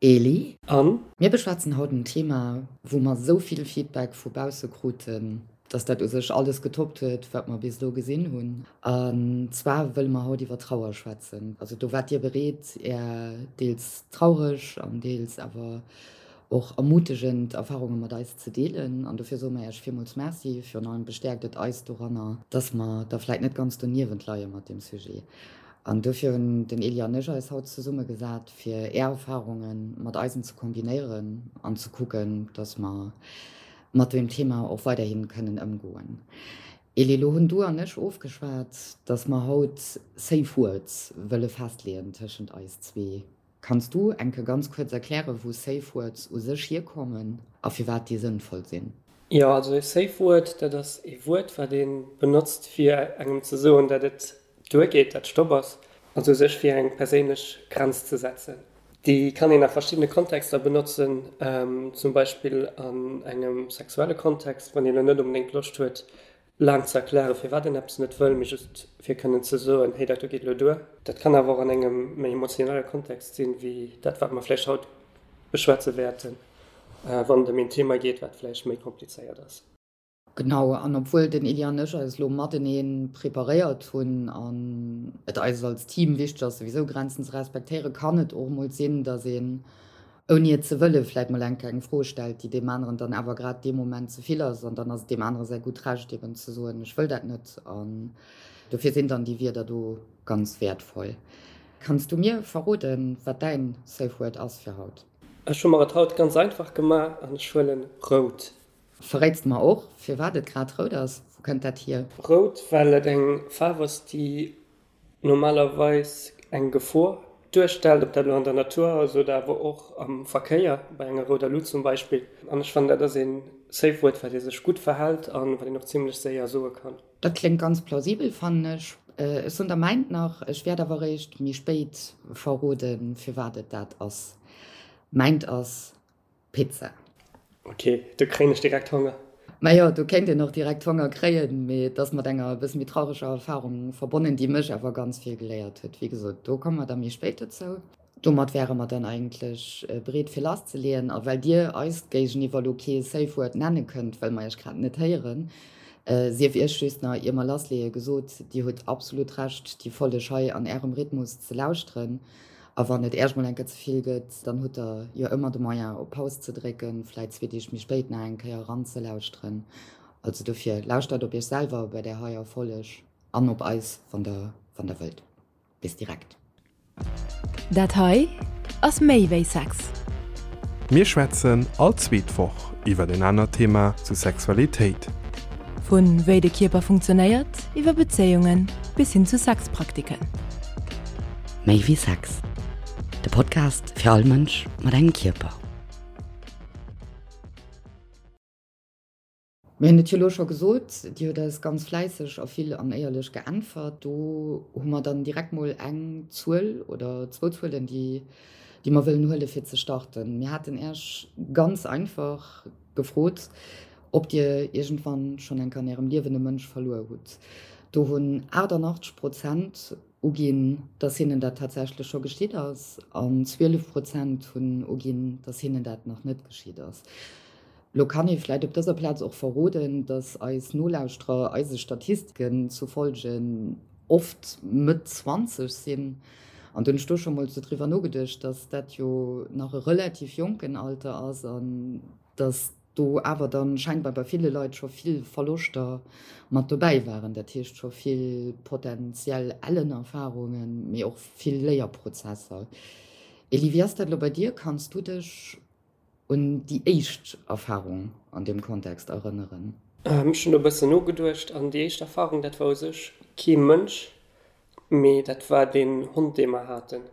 Eli. An? Mir beschwätzen haut en Thema, wou mer esou vill Feedback vu bausse kruten, dass dat u sech alles getoppt huet, wat mer bis elo gesinn hunn. An zwar wëlle mer haut iwwer Trauer schwätzen. Also do waart Dir bereet, Är deels traureg an deels awer och ermutegend Erfarunge mat eis ze deelen. An dofir soe mer Iech villmools Merci. Virun allem bestäerkt et eis doranner, dass mer da vläit net ganz doniewent leie mat deem Sujet. An dofir hunn den Elie an ech eis haut zesummegesat, fir Är Erfarunge mat eisen ze kombinéieren an ze kucken, dass mer mat deem Thema och weiderhi kënnen ëmgoen. Elie, elo hunn du an ech ofgeschwat, dass mer haut Safe Words wëlle festleeën tëschent eis zwee. Kanns du enke ganz kuerz erklären, wou Safe Words u sech hierkommen a firwat déi sënnvoll sinn? Jo, also e Safe Word, dat ass ee Wuert, wat ee benotzt, fir engem ze soen, dat et duergeet, dat Stopp ass, also u sech fir eng perséinlech Grenz ze setzen. Déi kann een a verschiddene Kontexter benotzen, zum Beispill an engem sexuelle Kontext, wann een elo net onbedéngt Loscht huet, laang ze erklären, firwat een eppes net wëll, mee just fir kënnen ze soen, hey, dat do geet elo duer. Dat kann awer och an engem méi emotionelle Kontext sinn, wéi dat, wat mer vläicht haut beschwätze wäerten, wann et ëm een Thema geet, wat vläicht méi komplizéiert ass. Genau, an obwuel den Elie an ech eis elo matenee preparéiert hunn an et eis als Team wichteg ass, souwisou Grenzen ze respektéieren, kann et och emol sinn, dass een ouni et ze wëllen, vläit mol eng kleng Fro stellt, déi deem aneren dann awer grad dee Moment ze vill ass. An dann ass et deem anere säi gutt Recht eben ze soen, ech wëll dat net. An dofir sinn dann déi Wierder do ganz wäertvoll. Kanns du mir verroden, wat däin Safe Word ass fir haut? Ech hu mer et haut ganz einfach gemaach an ech huelen rout. Verréits de mer och, firwat et grad rout ass? Wou kënnt dat hier? Rout, well et eng Faarf ass, déi normalerweis eng Gefor duerstellt, ob dat elo an der Natur ass oder awer och am Verkéier, bei enger rouder Lut zum Beispill. An ech fannen, dat ass ee Safe Word, wat ee sech gutt verhält a wat een och zimlech séier soe kann. Dat kléngt ganz plausibel, fannen ech. Ech soen der mäint nach, ech wäert awer eréischt méi spéit verroden, firwat et dat ass. Mäint ass Pizza. Ok, do kréien ech direkt Honger. Majo, do kéint een och direkt Honger kréien, mee et ass mat enger e bësse méi traureger Erfahrung verbonnen, déi mech awer ganz vill geléiert huet. Wéi gesot, do komme mer da méi spéit dozou. Domat wäre mer dann eigentlech bereet fir lasszeleeën. A well dir eis géigeniwwer elo kee Safe Word nenne kënnt, well mer iech grad net héieren, sief iech just nach, ier mer lassleeë gesot, dir hutt absolut Recht, déi Folleg hei an ärem Rhythmus ze lauschteren. A wann et Äerch mol eng Kéier ze vill gëtt, dann hutt der jo ëmmer de Moyen op Paus ze drécken, vläit zwee Deeg méi spéit nach eng Kéier eranzelauschteren. Also dofir, lauschtert op Iech selwer bei där heier Folleg an op eis, wann der, wann der wëllt. Bis direkt. Dat hei ass méi wéi Sex. Mir schwätzen all zweet Woch iwwer en anert Thema zu Sexualitéit. Vu wéi de Kierper funktionéiert, iwwer Bezéiungen bis hin zu Sexpraktiken. Méi wéi Sex, de Podcast fir all Mënsch mat engem Kierper. Mir hunn et jo elo scho gesot, Dir hutt eis ganz fläisseg a vill an éierlech geäntwert. Do hu mer dann direkt mol eng Zuel oder zwou Zuelen, déi déi mer wëllen huele fir ze starten. Mir haten Iech ganz einfach gefrot, ob Dir iergendwann schonn eng Kéier an Ärem Liewen e Mënsch verluer hutt. Do hunn 88 Prozent uginn, dass hinnen dat tatsächlech scho geschitt ass an 12 Prozent hunn uginn, dass hinnen dat nach net geschitt ass. Lo kann ee vläit op dëser Plaz och verroden, dass eis Nolauschterer eise Statistiken zu folge oft Mëtt 20 sinn. An do hunn ech do scho mol sou driwwer nogeduecht, dass dat jo nach e relativ jonken Alter ass an dass do awer dann scheinbar bei ville Leit scho vill Verloschter mat dobäi waren, dat heescht scho vill potenziell ellen Erfarungen, mee och vill Léierprozesser. Elie, wéi ass dat elo bei dir? Kanns du dech un déi éischt Erfarung an deem Kontext erënneren? Ech hunn do e bëssen nogeduecht an déi éischt Erfarung, dat war u sech kee Mënsch, mee dat war deen Hond, dee mer haten.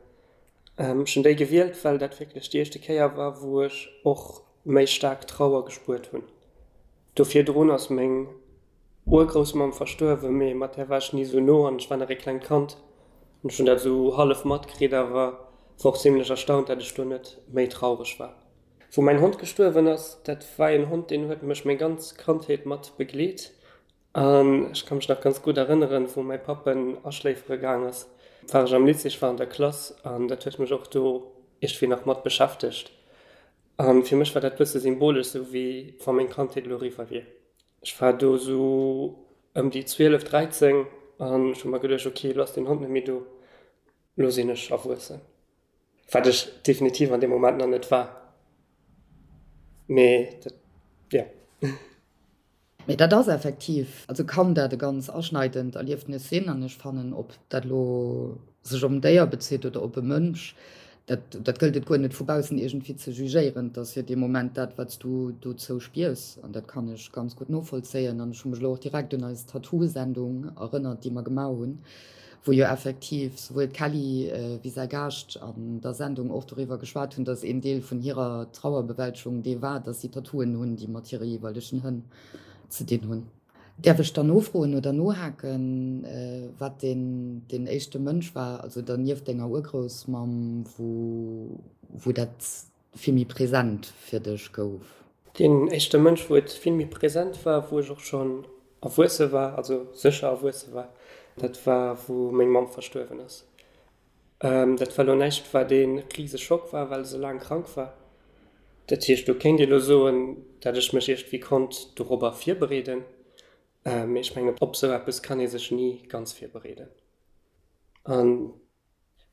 Ech hunn déi gewielt, well dat wierklech déi éischte Kéier war, wou ech och méi staark Trauer gespuert hunn. Do virdrun ass meng Urgroussmamm verstuerwen, mee mat där war ech ni esou no an ech war nach ee klengt Kand an ech hunn dat esou hallef matkritt, awer war och zimlech erstaunt, dat ech do net méi traureg war. Wou mäin Hond gestuerwen ass, dat war een Hond, deen huet mech meng ganz Kandheet mat begleet An ech ka mech nach ganz gutt erënneren, wou mäi Papp en aschléifere gaang ass, war ech am Lycée, ech war an der Klass an dat huet mech och do. iergendwéi nach mat beschäftegt. A fir mech war dat bësse symbolesch, sou wéi wa meng Kandheet elo eriwwer wier. Ech war do sou ëm déi 12, 13 an ech hu mer geduecht, ok, elo ass deen Hond net méi do, elo sinn ech erwuessen. Wat ech definitiv an deem Moment nach net war. Mee dat, jo. Mee dat ass effektiv, also kann dat e ganz aschneidend Erliefnis sinn. An ech fannen, ob dat elo sech op en Déier bezitt oder op e Mënsch, dat, dat gëllt et guer net vu baussen iergendwéi ze jugéieren. Et ass jo dee Moment dat, wat s du dozou spiers. An dat kann ech ganz gutt novollzéien. An ech hu mech elo och direkt un eis Tattoo-Sendung erënnert, déi mer gemaach hunn, wou jo effektiv souwuel d'Kelly wéi säi Gaascht an der Sendung och doriwwer geschwat hunn, dass een Deel vun hirer Trauerbewältegung dee war, dass si Tattooen hunn, déi mat hire jeeweilegen Hënn ze dinn hunn. Däerf ech dann nofroen oder nohaken, wat deen deen éischte Mënsch war, also dann nieft denger Urgroussmamm, wou wou dat vill méi present fir dech gouf? Deen éischte Mënsch, wou et vill méi present war, wou ech och schonn erwuesse war, also sécher erwuesse war, dat war, wou meng Mamm verstuerwen ass. Dat war elo näischt, wat ee rise Schock war, well se laang krank war. Dat heescht, do kéint ee elo soen, dat ech mech iergendwéi konnt dorobber virbereeden. Mee ech mengen, op esou eppes kann ee sech ni ganz virbereeden. An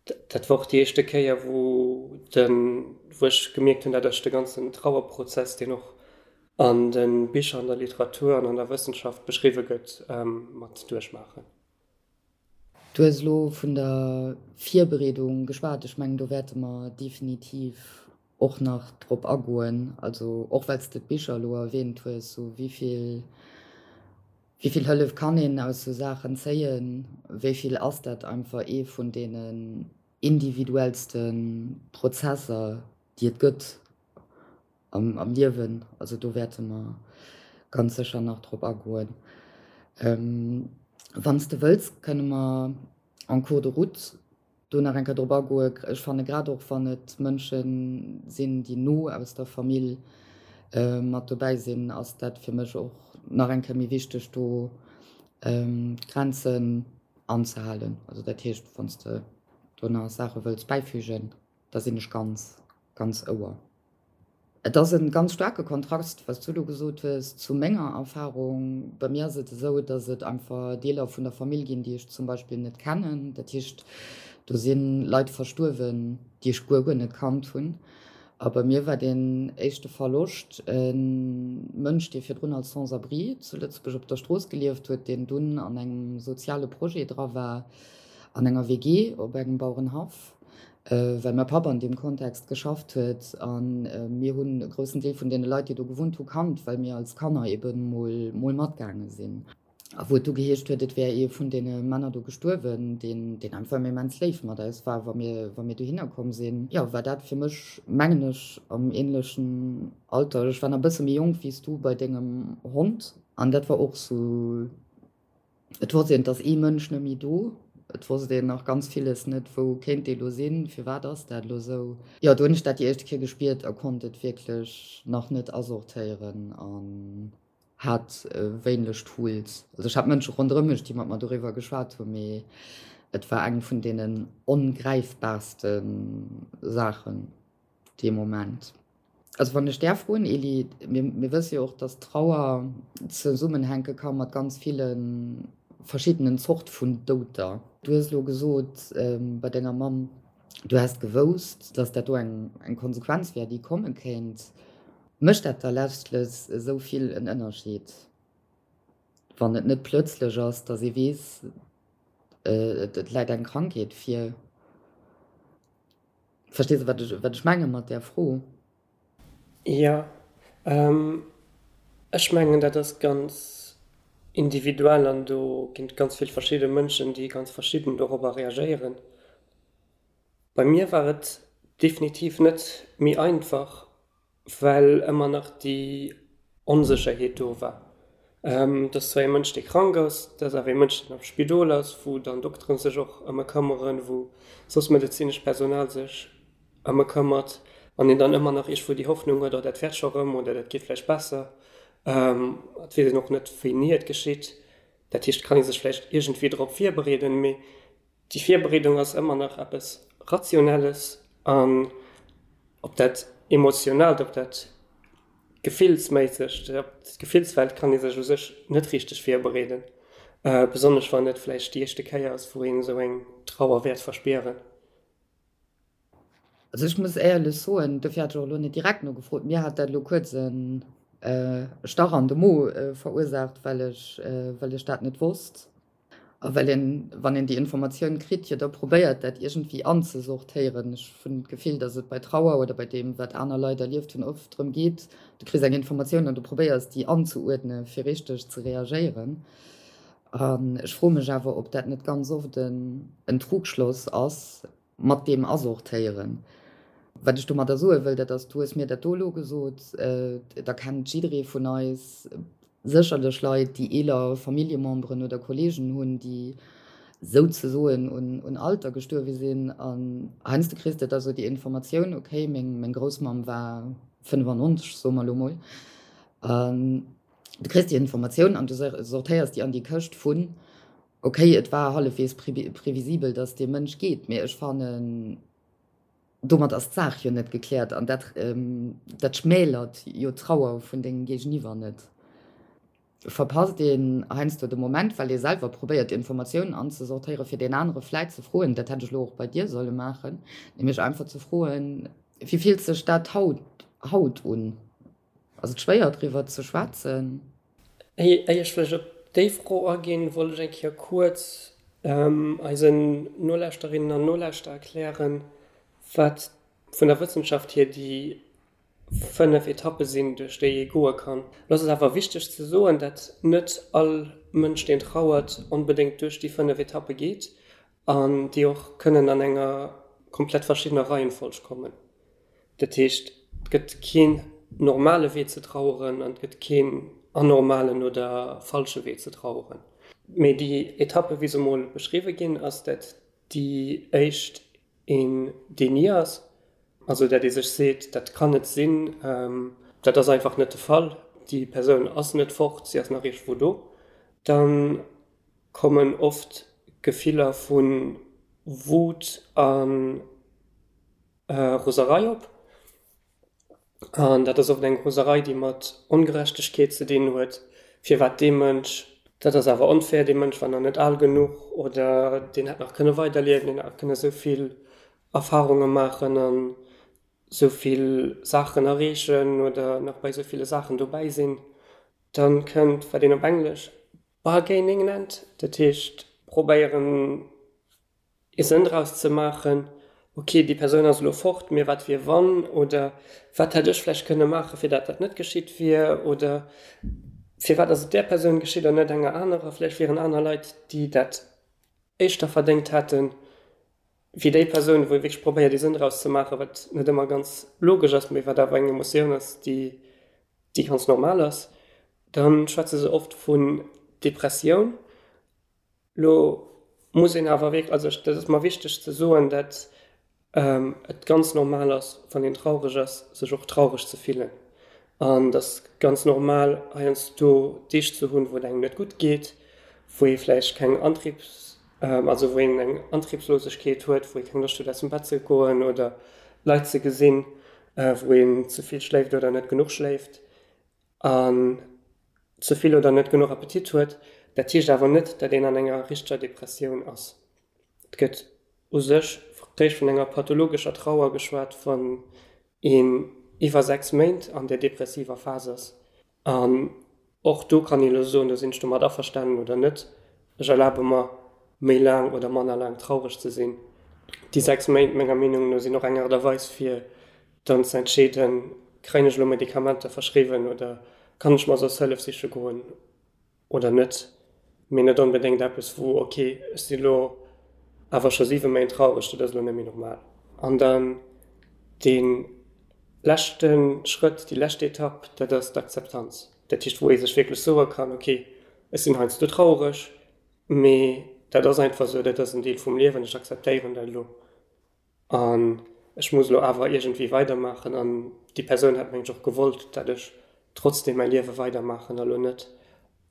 Dat war och déi éischte Kéier, wou de, wou ech gemierkt hunn, dat ech de ganzen Trauerprozess, deen och an de Bicher, an der Literatur an an der Wëssenschaft beschriwwe gëtt, mat duerchmaachen. Du hues elo vun der Virbereedung geschwat. Ech mengen, do wäerte mer definitiv och nach drop agoen. Also och well s de d'Bicher elo erwähnt hues, sou wéi vill, wéi vill Hëllef kann een aus sou Saachen zéien, wéi vill ass dat einfach ee vun deenen individuellste Prozesser, déi et gëtt am, am Liewen. Also do wäerte mer ganz sécher nach drop agoen. Wann s de wëlls, kënne mer en cours de route do nach eng Kéier drop agoen. Ech fanne grad och wann et Mënsche sinn, déi no aus der Famill mat dobäi sinn, ass dat fir mech och nach eng Kéier méi wichteg, do d'Grenzen anzehalen. Also dat heescht, wann s de do nach Saache wëlls bäifügen, da sinn ech ganz, ganz Ouer. Et ass e ganz staarke Kontrast, wat s du elo gesot hues, zu menger Erfarung. Bei mir ass et esou, datt et einfach Deeler vun der Famill ginn, déi ech zum Beispill net kennen. Dat heescht, do si Leit verstuerwen, déi ech guer, guer net kannt hunn. A bei mir war deen éischte Verloscht e Mënsch, dee virdrun als Sans-abri zu Lëtzebuerg op der Strooss gelieft huet, deen dunn an engem soziale Projet dra war, an enger WG op engem Bauerenhaff. well mäi Papp an deem Kontext geschafft huet a mir hunn e groussen Deel vun deene Leit, déi do gewunnt hu kannt, well mir als Kanner ebe mol mol matgaange sinn. A wou et du geheescht huet, et wär ee vun deene Männer do gestuerwen, deen deen einfach immens léif mat eis war, wa mir wa mir dohinner komm sinn. Jo, war dat fir mech, mengen ech, am änlechen Alter, ech war nach e bësse méi jonk wéi s du bei dengem Hond, an dat war och sou Et wosst een, et ass ee Mënsch net méi do. Et wosst een nach ganz villes net, wou kéint dee lo sinn, firwat ass dat lo sou. Jo, do hunn ech dat déi éischte Kéier gespiert a konnt et wierklech nach net asortéieren an hat wéineg Tools. Also ech hat Mënsche ronderëm mech, déi mat mer doriwwer geschwat hunn, mee et war eng vun deenen ongräifbaarste Saachen. dee Moment. Also wann ech däerf froen, Elie, mir, mir wësse jo och, dass Trauer zesummenhänke ka mat ganz ville verschiddenen Zort vun Douter. Du hues elo gesot bei denger Mamm, du häss gewousst, dass dat do eng, eng Konsequenz wär, déi komme kéint. Mécht dat da letztlech esou vill en Ënnerscheed, wann et net plötzlech ass, dass ee weess, et läit eng Krankheet vir? Verstees de, wat ech, wat ech menge mat där Fro? Jo, ech mengen, dat ass ganz individuell an do ginn et ganz vill verschidde Mënschen, déi ganz verschidden dorobber reagéieren. Bei mir war et definitiv net méi einfach, well ëmmer nach déi Onsécherheet do war. Et ass zwar ee Mënsch, dee krank ass, et ass awer ee Mënsch, deen am Spidol ass, wou dann Dokteren sech och ëm e këmmeren, wou soss medezinescht Personal sech ëm e këmmert an een dann ëmmer nach iergendwou déi Hoffnung huet, oh dat wäert scho rëm oder dat geet vläicht besser. Et weess een och net, wéini et geschitt. Dat heescht, et kann ee sech vläicht iergendwéi drop virbereeden, mee Déi Virbereedung ass ëmmer nach eppes Rationelles an Op dat Emotionaalt, op dat Gefillsméissegt, op d'Gefillswelt kann ee sech u sech net richteg virbereeden, besonnesch wann et vläicht déi éischte Kéier ass, wou een esou eng Trauer wäert verspieren. Also ech muss éierlech soen, dofir hat ech och elo net direkt nogefrot, mir hat dat elo kuerz e Stach an de Mo verursaacht, well ech, well ech dat net wosst. A well een, wann een déi Informatioun kritt, jo da probéiert, dat iergendwéi anzesortéieren. Ech hunn d'Gefill, datt et bei Trauer oder bei deem, wat aner Leit erlieft hunn, oft drëm geet, du kriss eng Informatioun an du probéiers, déi anzeuerdne fir richteg ze reagéieren. An ech froe mech awer, ob dat net ganz oft en Trugschloss ass mat deem Asortéieren. Wat ech domadder soe wëll, dat ass, du hues mir dat do elo gesot, da kennt jidderee vun eis sécherlech Leit, déi eeler Familljememberen oder Kolleegen hunn, déi souzesoen un Alter gestuerwe sinn. An heiansdo kriss de da sou déi Informatioun, okay, meng Groussmamm war 95, soe mer elo mol. An du kriss déi Informatioun an du sortéiers déi an déi Këscht vun, okay, et war hallefwegs previsibel, datt dee Mënsch geet, mee ech fannen, Domat ass d'Saach jo net gekläert an dat dat schmälert jo d'Trauer vun dengem Géigeniwwer net. Verpasst een heiansdo de Moment, well ee selwer probéiert Informatiounen anzesortéieren, fir deen anere vläit ze froen, dat hätt ech elo och bei dir solle maachen, nämlech einfach ze froen, Wéi fillt sech dat haut haut un? Ass et schwéier driwwer ze schwätzen? Éier ech vläicht op déi Fro aginn, wollt ech eng Kéier kuerz eisen Nolauschterinnen an Nolauschterer erklären, wat vun der Wëssenschaft hier déi 5 Etappe sinn, duerch déi ee goe kann. Lo ass et awer wichteg ze soen, dat net all Mënsch, deen trauert, onbedéngt duerch déi 5 Etappe geet an déi och kënnen an enger komplett verschiddener Reihenfolg kommen. Dat heescht, et gëtt keen normale Wee ze traueren an et gëtt keen anormalen oder falsche Wee ze traueren. Mee déi Etappe wéi se emol beschriwwe ginn, ass dat déi éischt een Déni ass, also dat ee sech seet, dat kann net sinn, dat ass einfach net de Fall, déi Persoun ass net fort, si ass nach iergendwou do. Dann kommen oft Gefiller vu Wut a Roserei op. An dat ass oft eng Roserei, déi mat Ongerechtegkeet ze dinn huet, firwat dee Mënsch, dat ass awer onfair, dee Mënsch war nach net al genuch oder deen hätt nach kënne weiderliewen, deen hätt nach kënne sou vill Erfarunge maachen an sou vill Saachen erreechen oder nach bei sou ville Saachen dobäi sinn. Dann kënnt, wat een op Englesch bargaining nennt, dat heescht probéieren ee Sënn draus ze maachen, ok, déi Persoun ass elo fort, mee wat wier wann oder wat hätt ech vläicht kënne maachen, fir dat dat net geschitt wier oder firwat ass et där Persoun geschitt an net enger anerer, vläicht wieren aner Leit, déi dat éischter verdéngt hätten, wéi déi Persoun, wou ee wierklech probéiert ee Sënn draus ze maachen, wat net ëmmer ganz logesch ass, mee wat awer eng Emotioun ass, déi déi ganz normal ass. Dann schwätze se oft vun Depressioun. Lo muss een awer wierklech, also dat ass mer wichteg ze soen, dat et ganz normal ass, wann een traureg ass, sech och traureg ze fillen. An et ass ganz normal heiansdo Deeg ze hunn, wou et engem net gutt geet, wou ee vläicht keng Antriebs, also wou een eng Antriebslosegkeet huet, wou ee keng Loscht huet aus dem Bett ze goen oder Leit ze gesinn, wou een ze vill schléift oder net genuch schléift. An ze vill oder net genuch Appetit huet. Dat heescht awer net, dat een an enger richteger Depressioun ass. Et gëtt u sech réischt vun enger pathologescher Trauer geschwat, wann een iwwer 6 Méint an där depressiver Phas ass. An och do kann een elo soen, do sinn ech domat averstanen oder net. Ech erlabe mer, méi laang oder manner laang traureg ze sinn. Déi 6 Méint, menger Meenung no, sinn och eng Aart a Weis fir dann ze entscheeden, kréien ech elo Medikamenter verschriwwen oder kann ech mer soss Hëllef siche goen oder net, mee net onbedéngt eppes wou, ok, ech si elo awer scho 7 Méint traureg, dat ass elo net méi normal. An dann dee leschte Schrëtt, déi lescht Etapp, dat ass d'Akzeptanz. Dat heescht, wou ee sech wierklech soe kann, ok, ech sinn heiansdo traureg, mee dat ass einfach esou, dat ass en Deel vum Liewen, ech akzeptéieren dat elo. An ech muss elo awer iergendwéi weidermaachen. An déi Persoun hätt mengen ech och gewollt, dat ech trotzdem mäi Liewe weidermaachen a lo net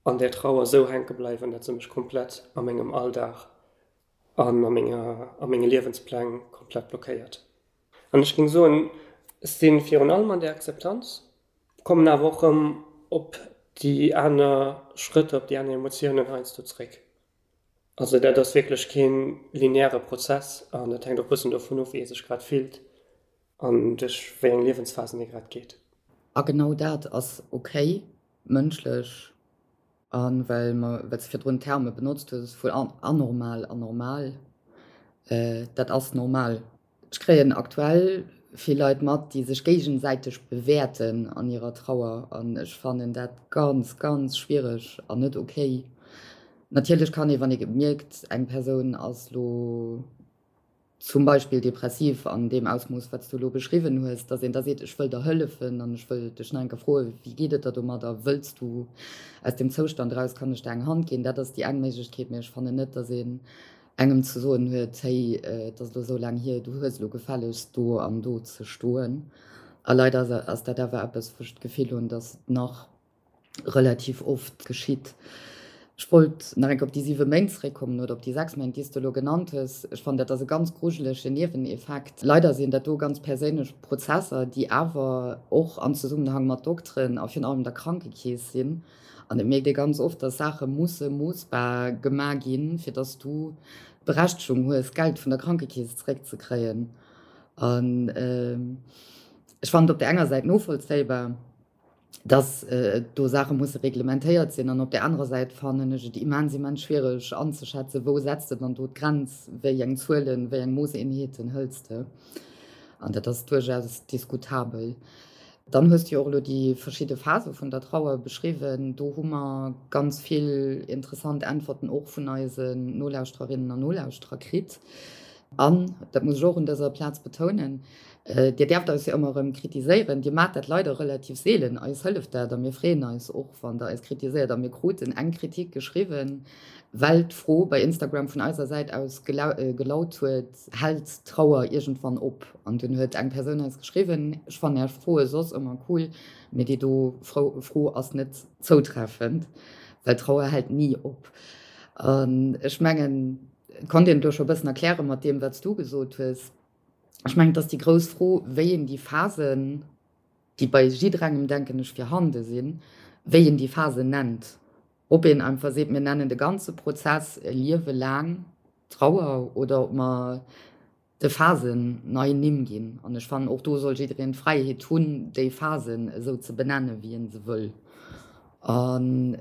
an där Trauer esou hänke bleiwen, dat se mech komplett a mengem Alldag an a menger, a menge Liewenspläng komplett blockéiert. An ech géing soen. Ech si virun allem an der Akzeptanz, kommen awer och erëm op déi aner Schrëtter, op déi aner Emotiounen heiansdo zréck. Also dat ass wierklech kee lineäre Prozess an dat hänkt och e bëssen dovun of, wéi ee sech grad fillt an duerch wéi eng Liewensphasen ee grad geet. A genau dat ass ok, mënschlech. A well mer, well s de virdrun Terme benotzt hues vun anormal an normal, dat ass normal. Ech kréien aktuell vill Leit mat, déi sech géigesäiteg bewäerten an hirer Trauer an ech fannen dat ganz, ganz schwiereg an net ok. Natierlech kann ee, wann ee mierkt, eng Persoun ass lo zum Beispill depressiv an deem Ausmooss, wat s du elo beschriwwen hues, datt een da seet, ech wëll der hëllefen an ech wëll dech nach eng Kéier froen, wéi geet et der domadder, wëlls du aus deem Zoustand eraus, kann ech der eng Hand ginn? Dat ass déi eng Méiglechkeet, mee ech fannen net, datt een engem ze soen huet, hey, et ass elo esou laang hier, du hues elo gefällegst do an do ze stoen. A leider ass dat awer eppes, wou ech d'Gefill hunn, datt et nach relativ oft geschitt. Ech wollt nach eng Kéier op déi siwe Méint zeréckkommen oder op déi sechs Méint, déi s de elo genannt hues. Ech fannen, dat ass e ganz grujelege Nieweneffekt. Leider sinn dat do ganz perséinlech Prozesser, déi awer och am Zesummenhang mat Dokteren a virun allem der Krankekeess sinn. An et mierkt ee ganz oft, dass Saache musse moossbar gemaach ginn, fir dass du d'Berechtegung hues, Geld vun der Krankekeess zeréckzekréien. An ech fannen et op där enger Säit novollzéibar, dass do Saache musse reglementéiert sinn. An op där anerer Säit fannen ech et immens, immens schwiereg anzeschätzen, wou setzt de dann do d'Grenz, wéi eng Zuelen, wéi eng Moosseenheeten hëls de. An dat ass duerchaus diskutabel. Dann hues du jo och elo déi verschidde Phase vun der Trauer beschriwwen. Do hu mer ganz vill interessant Äntwerten och vun eisen Nolauschtererinnen an Nolauschterer kritt. An, dat muss ech och un dëser Plaz betounen, Dir däerft eis jo ëmmer erëm kritiséieren. Dir maacht dat leider relativ seelen. Eis hëlleft dat a mir freeën eis och, wann Der eis kritiséiert. A mir kruten eng Kritik geschriwwen, well d'Fro bei Instagram vun eiser Säit aus gelaut huet, Hält d'Trauer iergendwann op? An dunn huet eng Persoun eis geschriwwen, Ech fannen Är Froe soss ëmmer cool, mee déi do Fro ass net zoutreffend, well Trauer hält ni op. An ech mengen, et konnt een et elo scho e bëssen erkläre mat deem, wat s du gesot hues. Ech mengen, et ass déi grouss Fro, wéi een déi Phasen, déi bei jidderengem, denken ech, virhande sinn, wéi een déi Phasen nennt. Ob een einfach seet, mir nennen de ganze Prozess e Liewe laang Trauer oder ob mer de Phasen nei Nimm ginn. An ech fannen, och do soll jiddereen d'Fräiheet hunn, déi Phasen esou ze benennen, wéi en se wëll. An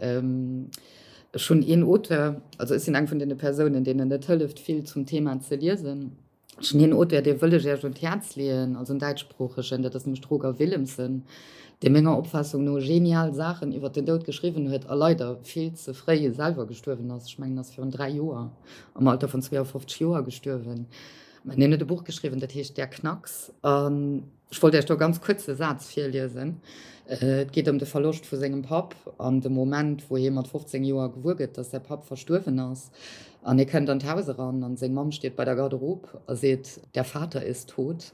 ech hunn een Auteur, also ech sinn eng vun deene Persounen, deenen et hëlleft vill zum Thema ze liesen, Ech hunn een Auteur, dee wëll ech Iech un d'Häerz leeën, also en däitschsproochegen, dat ass nämlech de Roger Willemsen, dee menger Opfaassung no genial Saachen iwwer den Doud geschriwwen huet a leider vill ze fréi selwer gestuerwen ass. Ech mengen, en ass virun 3 Joer am Alter vun 52 Joer gestuerwen. Mä hien huet e Buch geschriwwen, dat heescht Der Knacks. An Ech wollt Iech do e ganz kuerze Saz virliesen. Et geet ëm de Verloscht vu sengem Papp an de Moment, wou hie mat 15 Joer gewuer gëtt, dass säi Papp verstuerwen ass. An hie kënnt an d'Haus eran an seng Mamm steet bei der Garderobe a seet, Der Vater ist tot.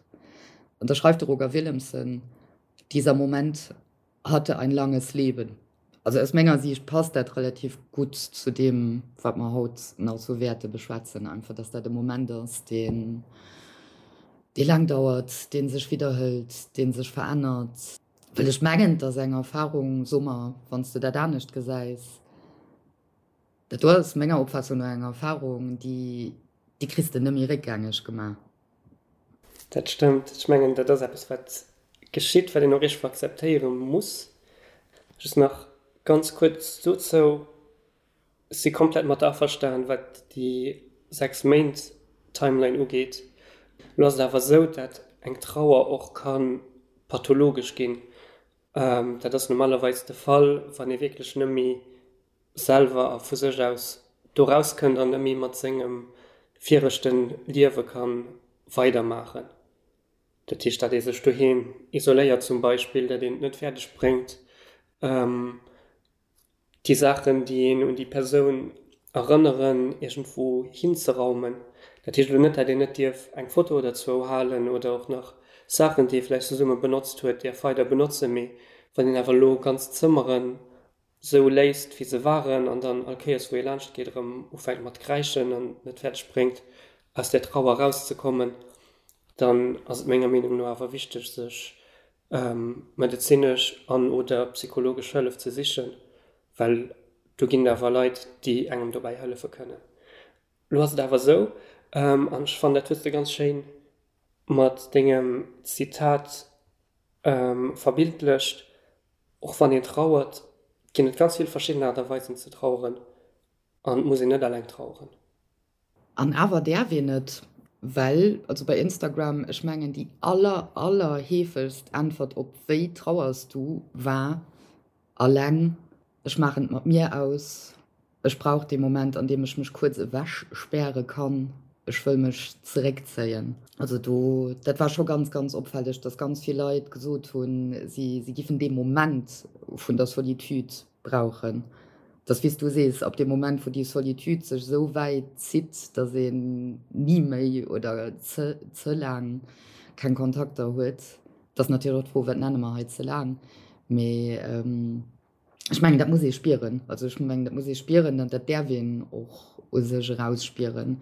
An da schreift de Roger Willemsen, Dieser Moment hatte ein langes Leben. Also aus menger Siicht passt dat relativ gutt zu deem, wat mer haut nach esou wäerte beschwätzen, einfach dass dat e Moment ass, deen, dee laang dauert, dee sech widderhëlt, dee sech verännert. Well ech mengen, et ass eng Erfahrung, so mer, wann s de dat anescht gesäis, dat do ass menger Opfaassung no eng Erfahrung, déi, déi kriss de net méi réckgängeg gemaach. Dat stëmmt. Ech mengen, dat ass eppes, wat geschitt, wat een och iergendwou akzeptéiere muss. Just nach ganz kuerz dozou, Ech si komplett mat der averstan, wat déi 6 Méint Timeline ugeet. Elo ass et awer esou, dat eng Trauer och ka pathologesch ginn. Dat ass normalerweis de Fall, wann ee wierklech net méi selwer a vu sech aus do rauskënnt an net méi mat sengem viregte Liewe ka weidermaachen. Dat heescht, datt ee sech doheem isoléiert zum Beispill, datt een et net fäerdeg bréngt, déi Saachen, déi een un déi Persoun erënneren, iergendwou hinzeraumen. Dat heescht elo net, datt een net dierf eng Foto oder zwou halen oder och nach Saachen, déi ee vläicht zesumme benotzt huet, däerf weider benotzen. Mee wann een awer elo ganz Zëmmeren sou léisst wéi se waren an dann all Kéiers wou ee laanscht geet erëm ufänkt mat kräischen an net fäerdeg bréngt aus där Trauer erauszekommen. Dann ass et menger Meenung no awer wichteg, sech medezinesch an oder psychologesch Hëllef ze sichen, well do ginn et awer Leit, déi engem dobäi hëllefe kënnen. Lo ass et awer esou, an ech fannen, dat hues de ganz schéin mat dengem Zitat verbildlecht, och wann een trauert, ginn et ganz vill verschidden Aart a Weisen ze traueren an et muss een net alleng traueren. An awer däerf een et, well, also bei Instagram, ech mengen déi aller, aller heefegst Äntwert op wéi trauers du war, alleng, ech maachen et mat mir aus, ech brauch dee Moment an deem ech mech kuerz ewech späre kann, ech wëll mech zeréckzéien. Also do, dat war scho ganz, ganz opfälleg, dass ganz vill Leit gesot hunn, si, si giffen dee Moment vun der Solitude brauchen. Dass, wéi s du sees, ab deem Moment, wou déi Solitude sech esou wäit zitt, dass een ni méi oder ze, ze laang keng Kontakter huet, dat ass natierlech och d'Fro, wat nenne mer hei ze laang, mee ech mengen, dat muss ee spieren. Also ech mengen, dat muss ee spieren an dat däerf een och u sech erausspieren.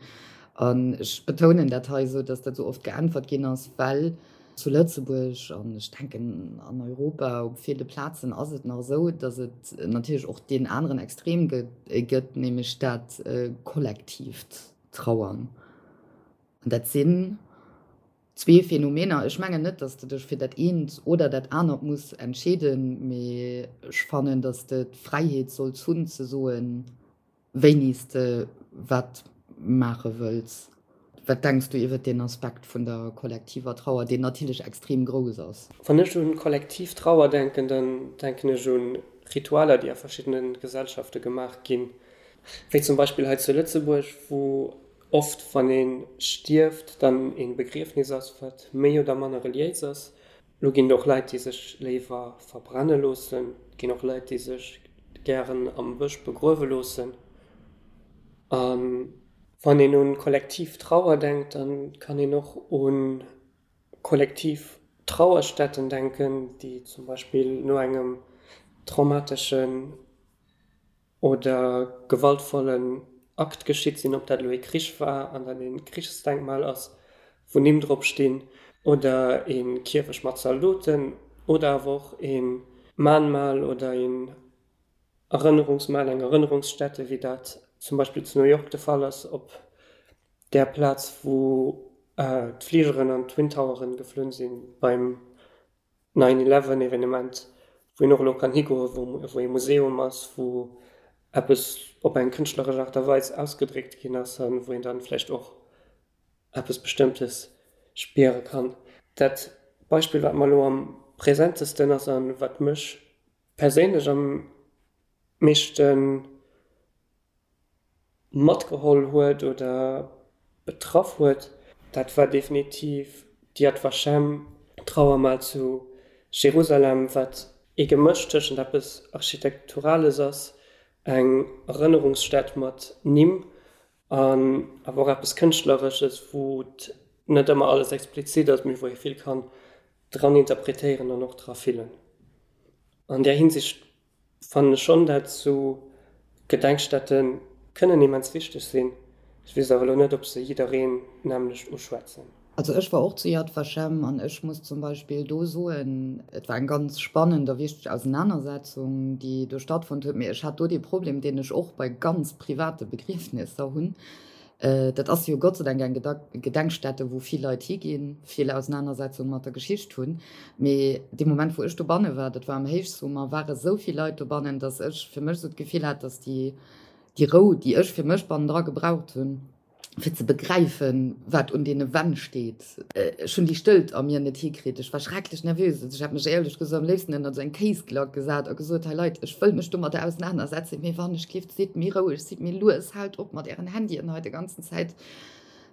An ech betounen dat hei esou, dass dat esou oft geäntwert ginn ass, well zu Lëtzebuerg an ech denken an Europa op ville Plazen ass et nach esou, dass et natierlech och deen aneren Extrem gëtt, nämlech dat kollektiivt Trauern. An dat sinn Zwee Phänomener. Ech mengen net, dass de dech fir dat eent oder dat anert muss entscheeden, mee ech fannen, dass de d'Fräiheet solls hunn ze soen, wéini s de wat maache wëlls. Wat denks du iwwert deen Aspekt vun der kollektiver Trauer, deen natierlech extrem grouss ass? Wann ech un kollektiv Trauer denken, dann denken ech un Ritualer, déi a verschiddene Gesellschafte gemaach ginn, wéi zum Beispill hei zu Lëtzebuerg, wou Oft wann een stierft, dann een Begriefnis ass wat méi oder manner reliéis ass. Lo ginn et och Leit déi sech léiwer verbrenne loossen, et ginn och Leit déi sech gären am Bësch begruewe loossen. A wann een un kollektiv Trauer denkt, dann kann een och un kollektiv Trauerstätten denken, déi zum Beispill no engem traumateschen oder gewaltvollen Akt geschitt sinn, ob dat elo ee Krich war an dat ee Krichsdenkmal ass, wou Nimm drop stinn, oder ee Kierfecht mat Zaldoten, oder awer och ee Mahnmal oder een Erënnerungsmal, eng Erënnerungsstätte, wéi dat zum Beispill zu New York de Fall ass, op där Plaz, wou d'Fligeren an d'Twin Toweren geflunn sinn beim Nine Eleven Evenement, wou een och elo kann higoen, wou ee Museum ass, wou eppes op eng kënschtleresch Aart a Weis ausgedréckt ginn ass a wou een dann vläicht och eppes Bestëmmtes spiere kann. Dat Beispill, wat mer elo am präsentesten ass a wat mech perséinlech am meeschten matgeholl huet oder betraff huet, dat war definitiv d'Yad Vashem Trauermal zu Jerusalem, wat ee Gemësch tëschent eppes Architekturales ass, eng Erënnerungsstätt mat Nimm, an awer och eppes Kënschtleresches, wou et net ëmmer alles explizit ass, mee wou ee vill kann dran interpretéieren an och dra fillen. An där Hinsicht Fannen ech schon dat sou Gedenkstätten kënnen immens wichteg sinn. Ech wees awer elo net op se jiddereen nämlecht uschwätzen. Also ech war och zu Yad Vashem an ech muss zum Beispill do soen, et war eng ganz spannend a wichteg Ausenanersetzung, déi do stattfonnt huet, mee ech hat do dee Problem, deen ech och bei ganz private Begriefnisser hunn, Dat ass jo Gott sei Dank eng Gedenkstätte, wou vill Leit higinn, vill Ausenanersetzung mat der Geschicht hunn. Mee dee Moment, wou ech dobanne war, dat war am Héichsummer, ware esou vill Leit dobannen, datt ech fir mech esou d'Gefill hat, datt déi, déi Rou, déi ech fir mech bannendra gebraucht hunn, fir ze begräifen, wat un deene Wänn steet, ech hunn déi Stëllt a mir net hikritt. Ech war schrecklech nervös. Also ech hätt mech éierlech gesot am léifsten ënnert esou eng Kéisglack gesat a gesot, Hei Leit, ech wëll mech domadder ausenanersetzen, mee wann ech giff, sidd méi roueg, sidd méi lues, haalt op mat ären Handyen hei de ganzen Zäit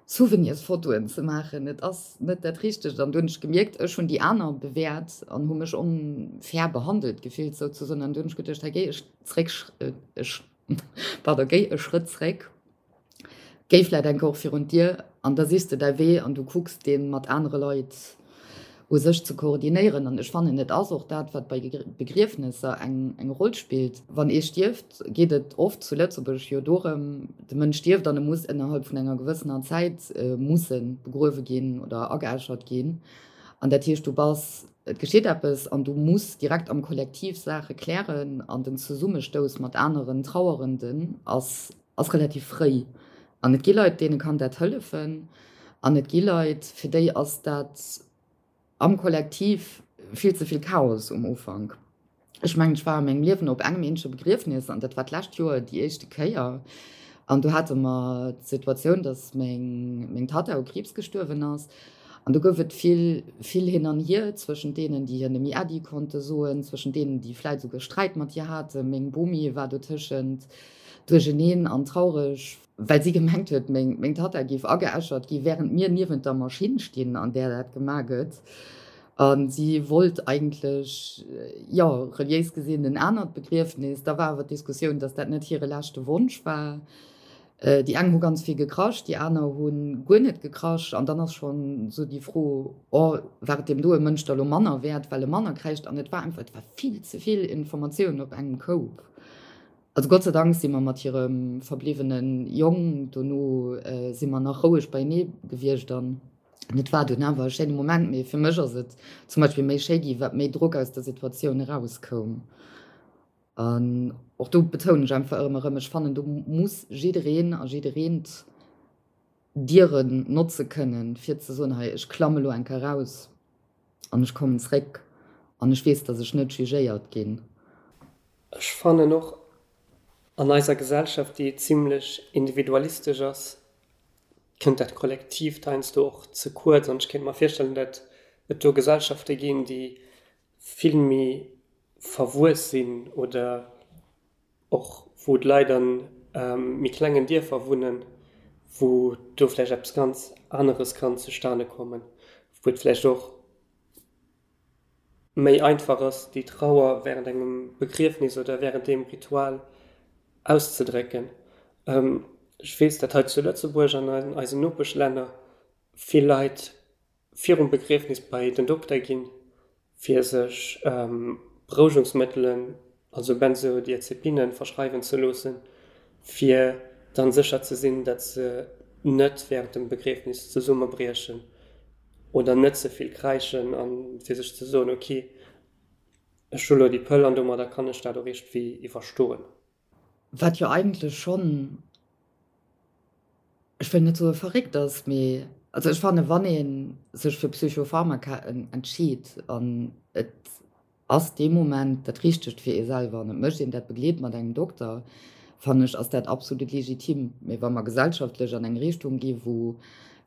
Souvenirsfotoen ze maachen, et ass net dat Richtegt. An du hunn ech gemierkt, ech hunn déi aner bewäert an hu mech onfair behandelt gefillt souzesoen. An du hunn ech geduecht, hei géi ech zréck, ech, pardon, géi e Schrëtt zréck, géi vläit eng Kéier och virun d'Dier an da sichs de däi Wee an du kucks dee mat anere Leit. U sech ze koordinéieren. An ech fannen, et ass och dat, wat bei Begriefnesser eng eng Roll spillt. Wann ee stierft, geet et oft zu Lëtzebuerg jo dorëm, de Mënsch stierft an e muss ënnerhalb vun enger gewëssener Zäit musse begruewe ginn oder ageäschert ginn. An dat heescht, du bass, et geschitt eppes an du muss direkt am Kollektiv Saache klären an den Zesummestouss mat aneren Trauerenden ass ass relativ fréi. An et gi Leit, deene kann dat hëllefen an et gi Leit, fir déi ass dat am Kollektiv vill ze vill Chaos um Ufank. Ech mengen, ech war a mengem Liewen op engem eenzege Begriefnes an dat war d'lescht Joer déi éischte Kéier. An do hate mer d'Situatioun, datt meng, meng Tatta u Kriibs gestuerwen ass. An do gouf et vill, vill hin an hier zwëschent deenen, déi hir nëmme Äddi konnte soen, zwëschent deenen, déi vläit esouguer Sträit mat hir haten. Meng Bomi war dotëschent duercheneen an traureg, well si gemengt huet, meng Tatta géif ageäschert gi während mir niewent der Maschinn stinn, an där dat gemaach gëtt. A si wollt eigentlech, jo, reliéis gesinn en anert Begriefnis. Da war awer d'Diskussioun, datt dat net hire leschte Wonsch war. Déi eng hu ganz vill gekrasch, déi aner hu guer net gekrasch. An dann ass schonn esou déi Fro, oh, war et deem doe Mënsch da lo manner wäert, well e manner kräischt? An et war einfach, et war vill ze vill Informatioun op engem Koup. Also Gott sei Dank si mer mat hirem verbliwwene Jong dono si mer nach roueg beienee gewiescht an et war dunn awer e schéine Moment. Mee fir mech ass et zum Beispill méi schéi gi wat méi Drock aus der Situatioun erauskoum. An och do betounen ech einfach ërem erëm, ech fannen do muss jiddereen a jiddereent Dieren notze kënnen fir ze soen, hei ech klamme lo eng Kéier raus. An ech kommen zréck an ech weess, dass ech net jugéiert ginn. Ech fannen och, an eiser Gesellschaft, déi zimlech individualistesch ass, kënnt dat Kollektiivt heiansdo och ze kuerz. An ech kéint mer virstellen, datt et do Gesellschafte ginn, déi vill méi verwuess sinn oder Och wou d'Leit a méi klengen Dierfer wunnen, wou do vläicht eppes ganz aneres kann zustane kommen, wou et vläicht och méi einfach ass, déi Trauer während engem Begriefnis oder während deem Ritual auszedrécken. Ech weess, dat hei zu Lëtzebuerg an an eisen Nopeschlänner vill Leit virum Begriefnis bei den Dokter ginn, fir sech Berouegungsmëttelen, also Benzodiazepinen, verschreiwen ze loossen, fir dann sécher ze sinn, datt se net wärend dem Begriefnis zesummebriechen oder net ze vill kräischen a fir sech ze soen, ok, ech hu lo déi Pëll an domadder kann ech dat och iergendwéi iwwerstoen. Wat jo eigentlech schonn, ech wëll net soe verréckt ass, mee also ech fanne wann ee sech fir Psychopharmaka entscheet an et ass dee Moment dat Richtegt fir ee selwer an et mécht een dat begleet mat engem Dokter, fannen ech ass dat absolut legitim. Mee wa mer gesellschaftlech an eng Richtung gi wou,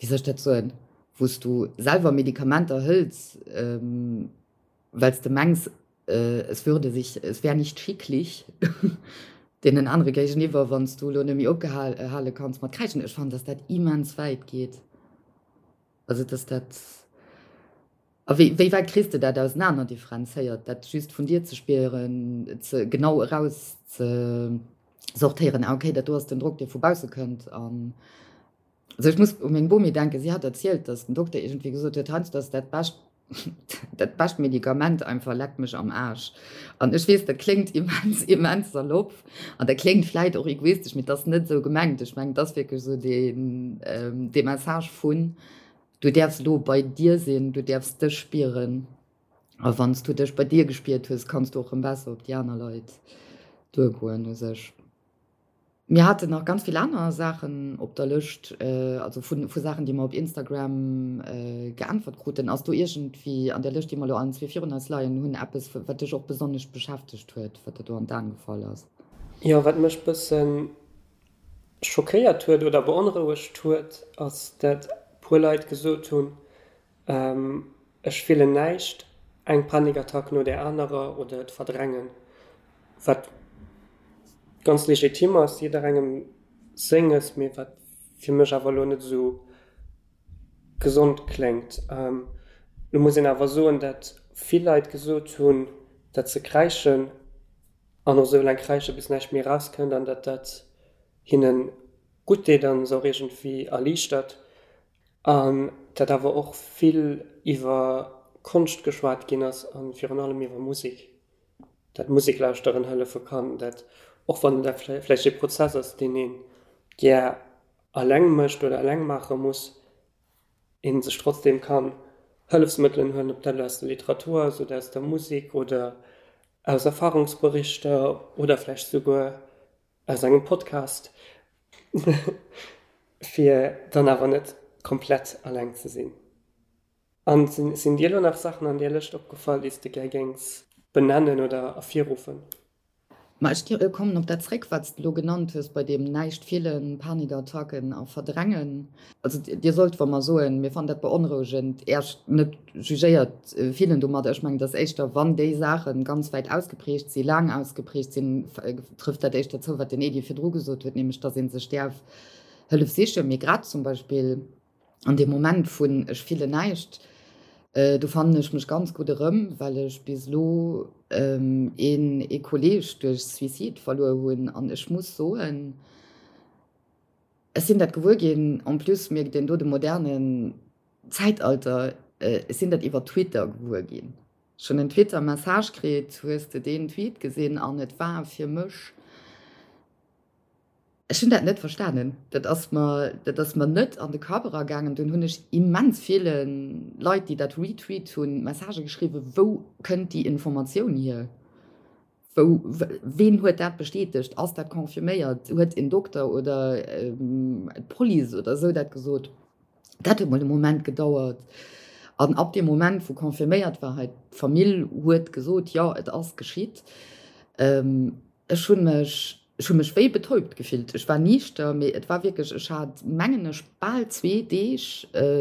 wéi soll ech dat soen, wou s du selwer Medikamenter hëls, well s de mengs, es würde sich, es wär nicht schicklich deenen anere géigeniwwer, wann s du elo net méi opgehale kanns mat kräischen. Ech fannen, dass dat immens wäit geet. Also dass dat, a wéi, wéi wäit kriss de dat ausenaner differenzéiert, dat just vun dir ze spieren, ze genau eraus ze sortéieren, ah okay, dat do ass den Drock, dee vu bausse kënnt an Also ech muss u meng Bomi denken, si hat erzielt, datt den Dokter iergendwéi gesot huet, heiansdo ass dat bescht, dat bescht Medikament einfach leck mech am Aarsch. An ech weess, dat kléngt immens, immens salopp an dat kléngt vläit och egoistesch, mee et ass net esou gemengt. Ech mengen, et ass wierklech esou deen, dee Message vun, du däerfs elo bei dir sinn, du däerfs dech spieren a wann s du dech bei dir gespiert hues, kanns du och erëm besser op déi aner Leit duergoen u sech. Mir haten nach ganz vill aner Saachen op der Lëscht, also vu Saachen, déi mer op Instagram geäntwert kruten. Ass do iergendwéi an där Lëscht, déi mer elo allen zwee virun eis leien hunn, eppes, wat dech och besonnesch beschäftegt huet, wat der do an d'Aen gefall ass? Jo, wat mech bësse schockéiert huet oder beonrouegt huet, ass, dat puer Leit gesot hunn, Ech fillen näischt, eng Panikattack no där anerer oder et verdrängen, wat ganz legitim ass, jidderengem senges, mee wat fir mech awer elo net esou gesond kléngt. Lo muss een awer soen, dat vill Leit gesot hunn, dat se kräischen an och esou laang kräische bis näischt méi erauskënnt an dat dat hinne gutt deet an se och iergendwéi erliichtert. An dat awer och vill iwwer. Konscht geschwat ginn ass a virun allem iwwer Musek, dat Musek lauschteren hëllefe kann, dat och wann dat vläicht ee Prozess ass, deen ee gär eleng mécht oder eleng maache muss, ee sech trotzdeem kann Hëllefsmëttelen huelen, ob dat elo aus der Literatur ass oder aus der Musek oder aus Erfahrungsberichter oder vläicht souguer aus engem Podcast, fir dann awer net komplett alleng ze sinn. An sinn dir elo nach Saachen an där Lëscht opgefall, déi s de gär géings benennen oder ervirruffen? Ma ech kommen op dat zréck, wat s de elo genannt hues bei deem näischt fillen, Panikattacken a Verdrängen. Also Dir sollt, wa mer soen, mir fannen dat beonrouegend, Äech net jugéiert fillen domadder. Ech mengen, dass éischter, wann déi Saache ganz wäit ausgeprägt sinn, laang ausgeprägt sinn, trëfft dat éischter zou, wat den Edy virdru gesot huet, nämlech dass ee sech däerf Hëllef sichen. Mee grad zum Beispill An deem Moment vun ech fillen näischt, do fannen ech mech ganz gutt erëm, well ech bis elo een ee Kolleeg duerch Suicide verluer hunn. An ech muss soen, ech sinn dat gewuer ginn, en plus mierkt een do de modernen Zäitalter, ech sinn dat iwwer Twitter gewuer ginn. Ech hunn en Twitter Message kritt, hues de deen Tweet gesinn? An et war fir mech. Ech hunn dat net verstanen. Dat ass mer, dat ass mer net an de Kapp eragaangen. Dunn hunn ech immens ville Leit, déi dat retweet hunn, Messagë geschriwwen, Wou kënnt déi Informatioun hier? Wou, ween huet dat bestätegt? Ass dat confirméiert? Huet en Dokter oder d'Police oder esou dat gesot? Dat huet mol e Moment gedauert. An ab deem Moment, wou confirméiert war, hei d'Famill huet gesot, jo, et ass geschitt, Ech hunn mech, ech hu mech wéi betäubt gefillt. Ech war niichter, mee et war wierklech, ech hat, mengen ech, bal zwee Deeg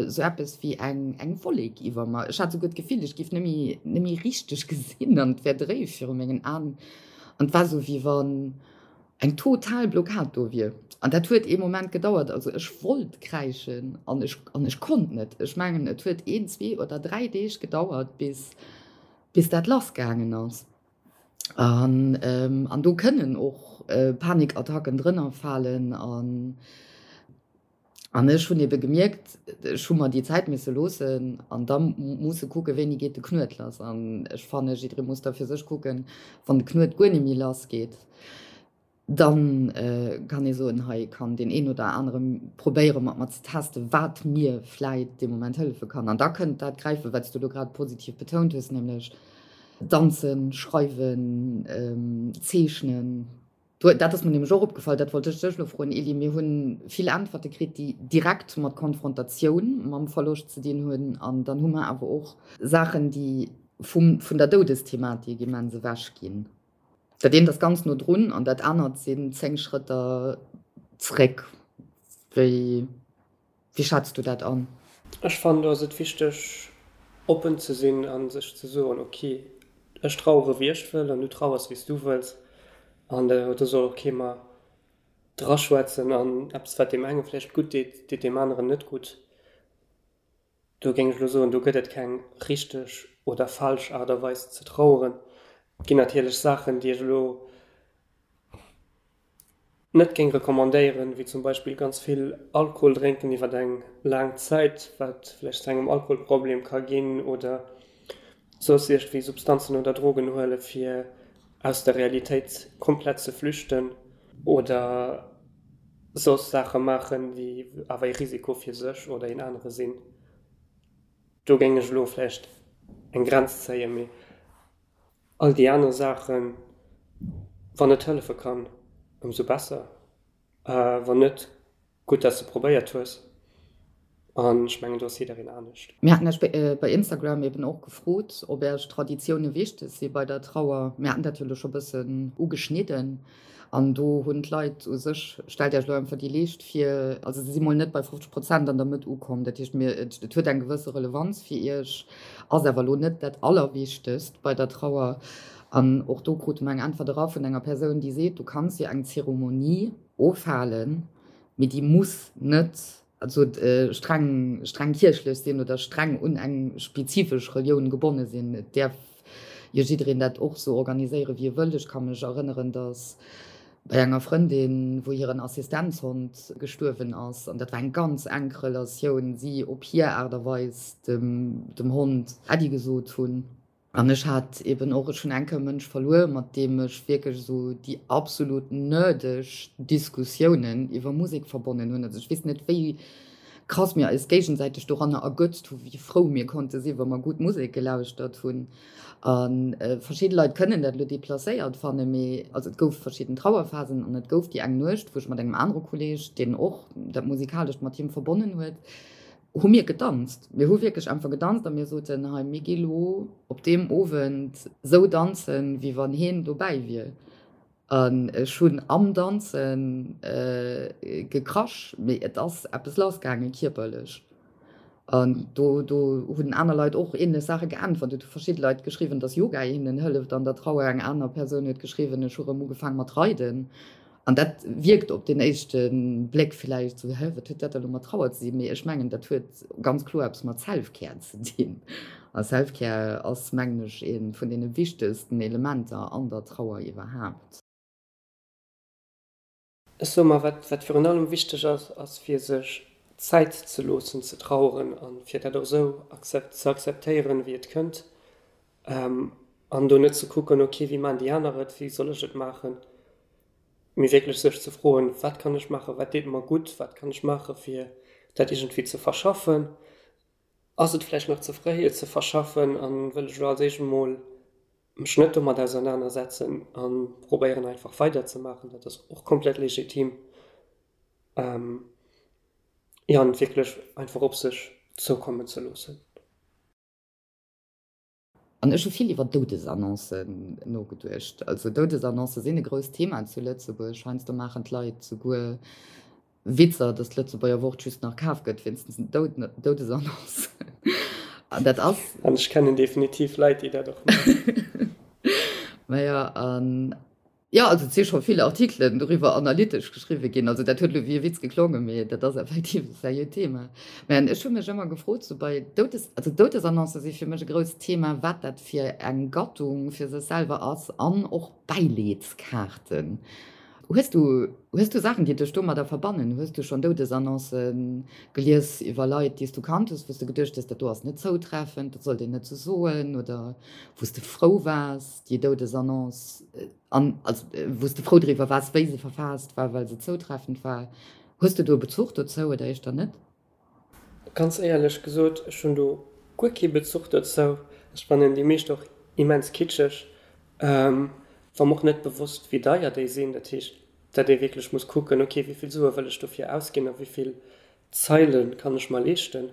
sou eppes wéi eng, eng Wollek iwwer mer. Ech hat souguer d'Gefill, ech géif net méi, net méi richteg gesinn an et wär dréif viru mengen Aen. An et war sou, wéi wann eng total Blockad do wier. An dat huet ee Moment gedauert. Also ech wollt kräischen an ech, an ech konnt net. Ech mengen, et huet een, zwee oder dräi Deeg gedauert, bis, bis dat lassgaangen ass. An an do kënnen och Panikattacken drënner falen. An an ech hunn ebe gemierkt, ech hu mer déi Zäit misse loossen an da musse kucken, wéini geet de Knuet lass. An ech fanne jidderee muss da fir sech kucken, wann de Knuet guer net méi lass geet, Dann kann ee soen, hei kann deen een oder anere probéiere mat mer ze testen, wat mir vläit dee Moment hëllefe kann. An da kënnt dat gräifen, wat s du elo grad positiv betount hues, nämlech danzen, schreiwen, zeechnen. Dat ass mir nämlech och opgefall, dat wollt ech dech elo froen, Elie. Mir hu vill Äntwerte kritt, déi direkt mat Konfrontatioun mam Verloscht ze dinn hunn. An dann hu mer awer och Saachen, déi vum, vun der Doudesthematik immens ewech ginn. Dat eent ass ganz no drun an dat anert sinn 10 Schrëtter zréck. Wéi wéi schätz du dat an? Ech fannen do ass et wichteg oppen ze sinn a sech ze soen, ok ech trauere wéi ech wëll an du trauers wéi s du wëlls an do soll och kee mer draschwätzen an eppes wat deem enge vläicht gutt deet, deet deem aneren net gutt. Do géing ech elo soen, do gëtt et keng richteg oder falsch Aart a Weis ze traueren. Et ginn natierlech Saachen, déi ech elo net géing recommandéieren, wéi zum Beispill ganz vill Alkohol drénken iwwer eng laang Zäit, wat vläicht zu engem Alkoholproblem ka ginn, oder soss iergendwéi Substanzen oder Drogen huele fir aus der Realitéit komplett ze flüchten oder soss Saache maachen, déi awer ee Risiko fir sech oder een anere sinn. Do géing ech elo vläicht eng Grenz zéien, mee all déi aner Saachen, wann et hëllefe kann, ëmsou besser. Wann net, Gutt dass de probéiert hues an ech mengen do ass jiddereen anescht. Mir haten Iech bei Instagram eben och gefrot, ob Iech Traditioune wichteg si bei der Trauer. Mir haten dat jo elo scho bëssen ugeschnidden an do hunn d'Leit u sech, stellt Iech elo einfach déi Leescht vir, also se si mol net bei 50 Prozent an der Mëtt ukomm. Dat heescht, mir, et huet eng gewësse Relevanz fir Iech, ass awer elo net dat Allerwichtegst bei der Trauer. An och do krute mer eng Äntwert era vun enger Persoun, déi seet, du kanns jo eng Zeremonie ofhalen, mee déi muss net also streng streng kierchlech sinn oder streng un eng spezifesch Relioun gebonne sinn. Et däerf jo jiddereen dat och sou organiséieren, wéi e wëll. Ech ka mech erënneren, datt. Bei enger Frëndin, wou hiren Assistenzhond gestuerwen ass, an dat war eng ganz enk Relatioun, si op hir Aart a Weis dem dem Hond Äddi gesot hunn. An ech hat eben och, ech hunn eng Kéier e Mënsch verluer, mat deem ech wierklech esou déi absolut nerdeg Diskussiounen iwwer Musek verbonnen hunn. Also ech weess net, wéi krass mir eis géigesäiteg doranner ergötzt hu wéi frou mir konnte sinn, wa mer gutt Musek gelauschtert hunn. A verschidde Leit kënnen dat elo deplacéiert fannen, mee also et gouf verschidden Trauerphasen an et gouf déi eng Nuecht, wou ech mat engem anere Kolleeg, deen och dat Musikalescht mat him verbonnen huet, hu mir gedanzt. Mir hu wierklech einfach gedanzt a mir soten, hei mir gi lo op deem Owend sou danzen, wéi wann heen dobäi wier. An ech hunn am Danze gekrasch, mee et ass eppes lassgaange kierperlech. An do do hunn aner Leit och änlech Saache geäntwert. Et hu verschidde Leit geschriwwen, datt Yoga hinnen hëlleft an der Trauer. Eng aner Persoun huet geschriwwen, ech hu rëm ugefaang mat reiden. An dat wierkt op den éischte Bléck villäicht esou, hä, wat huet dat da lo mat Trauer ze dinn? Mee ech mengen, dat huet ganz kloer eppes mat Self-Care ze dinn. A Self-Care ass, mengen ech, ee vun deene wichtegsten Elementer an der Trauer iwwerhaapt. Ech soe mer, wat, wat virun allem wichteg ass, ass fir sech Zäit ze loossen ze traueren a fir dat och esou ze akzeptéieren, wéi et kënnt. An do net ze kucken, ok, wéi maachen déi aner et, wéi soll ech et maachen, mee wierklech sech ze froen, wat kann ech maachen, wat deet mer gutt, wat kann ech maache fir dat iergendwéi ze verschaffen, ass et vläicht nach ze fréi et ze verschaffen a wëll ech elo als éischt emol mech net domat ausernanersetzen a probéieren einfach weiderzemaachen, dat ass och komplett legitim, jo, an et wierklech einfach op sech zoukommen ze loossen. An ech hu vill iwwer Doudesannoncen nogeduecht. Also Doudesannoncë sinn e grousst Thema zu Lëtzebuerg. Heiansdo maachen d'Leit souguer Witzer, datt d'Lëtzebuerger Wort just nach kaf gëtt wéinst den Doudesannoncen. An dat ass. An ech kennen definitiv Leit, déi dat och maachen. Majo, an Jo, also et si scho vill Artikelen doriwwer analytesch geschriwwe ginn. Also dat huet elo wéi e Witz geklongen, mee dat ass effektiv e seriöt Thema. Mä ech hu mech ëmmer gefrot, sou bei Doudes, also Doudesannoncë si fir mech e grousst Thema, wat dat fir eng Gattung fir sech selwer ass an och Bäileedskaarten. Hues du, hues du Saachen, déi dech domadder verbannen? Hues du schonn Doudesannoncë gelies iwwer Leit, déi s du kannt hues, wou s de geduecht hues, dat do ass net zoutreffend, dat sollt een net sou soen, oder wou s de frou waars, déi Doudesannonce, an also wou s de frou driwwer waars, wéi se verfaasst war, well se zoutreffend war. Hues de do e Bezuch dozou oder éischter net? Ganz éierlech gesot, ech hunn do guer kee Bezuch dozou. Ech fannen déi meescht och immens kitscheg. War mer och net bewosst, wéi deier déi sinn. Dat heescht, datt ee wierklech muss kucken, ok, wéi vill Sue wëll ech dofir ausginn a wéi vill Zeile kann ech mer leeschten.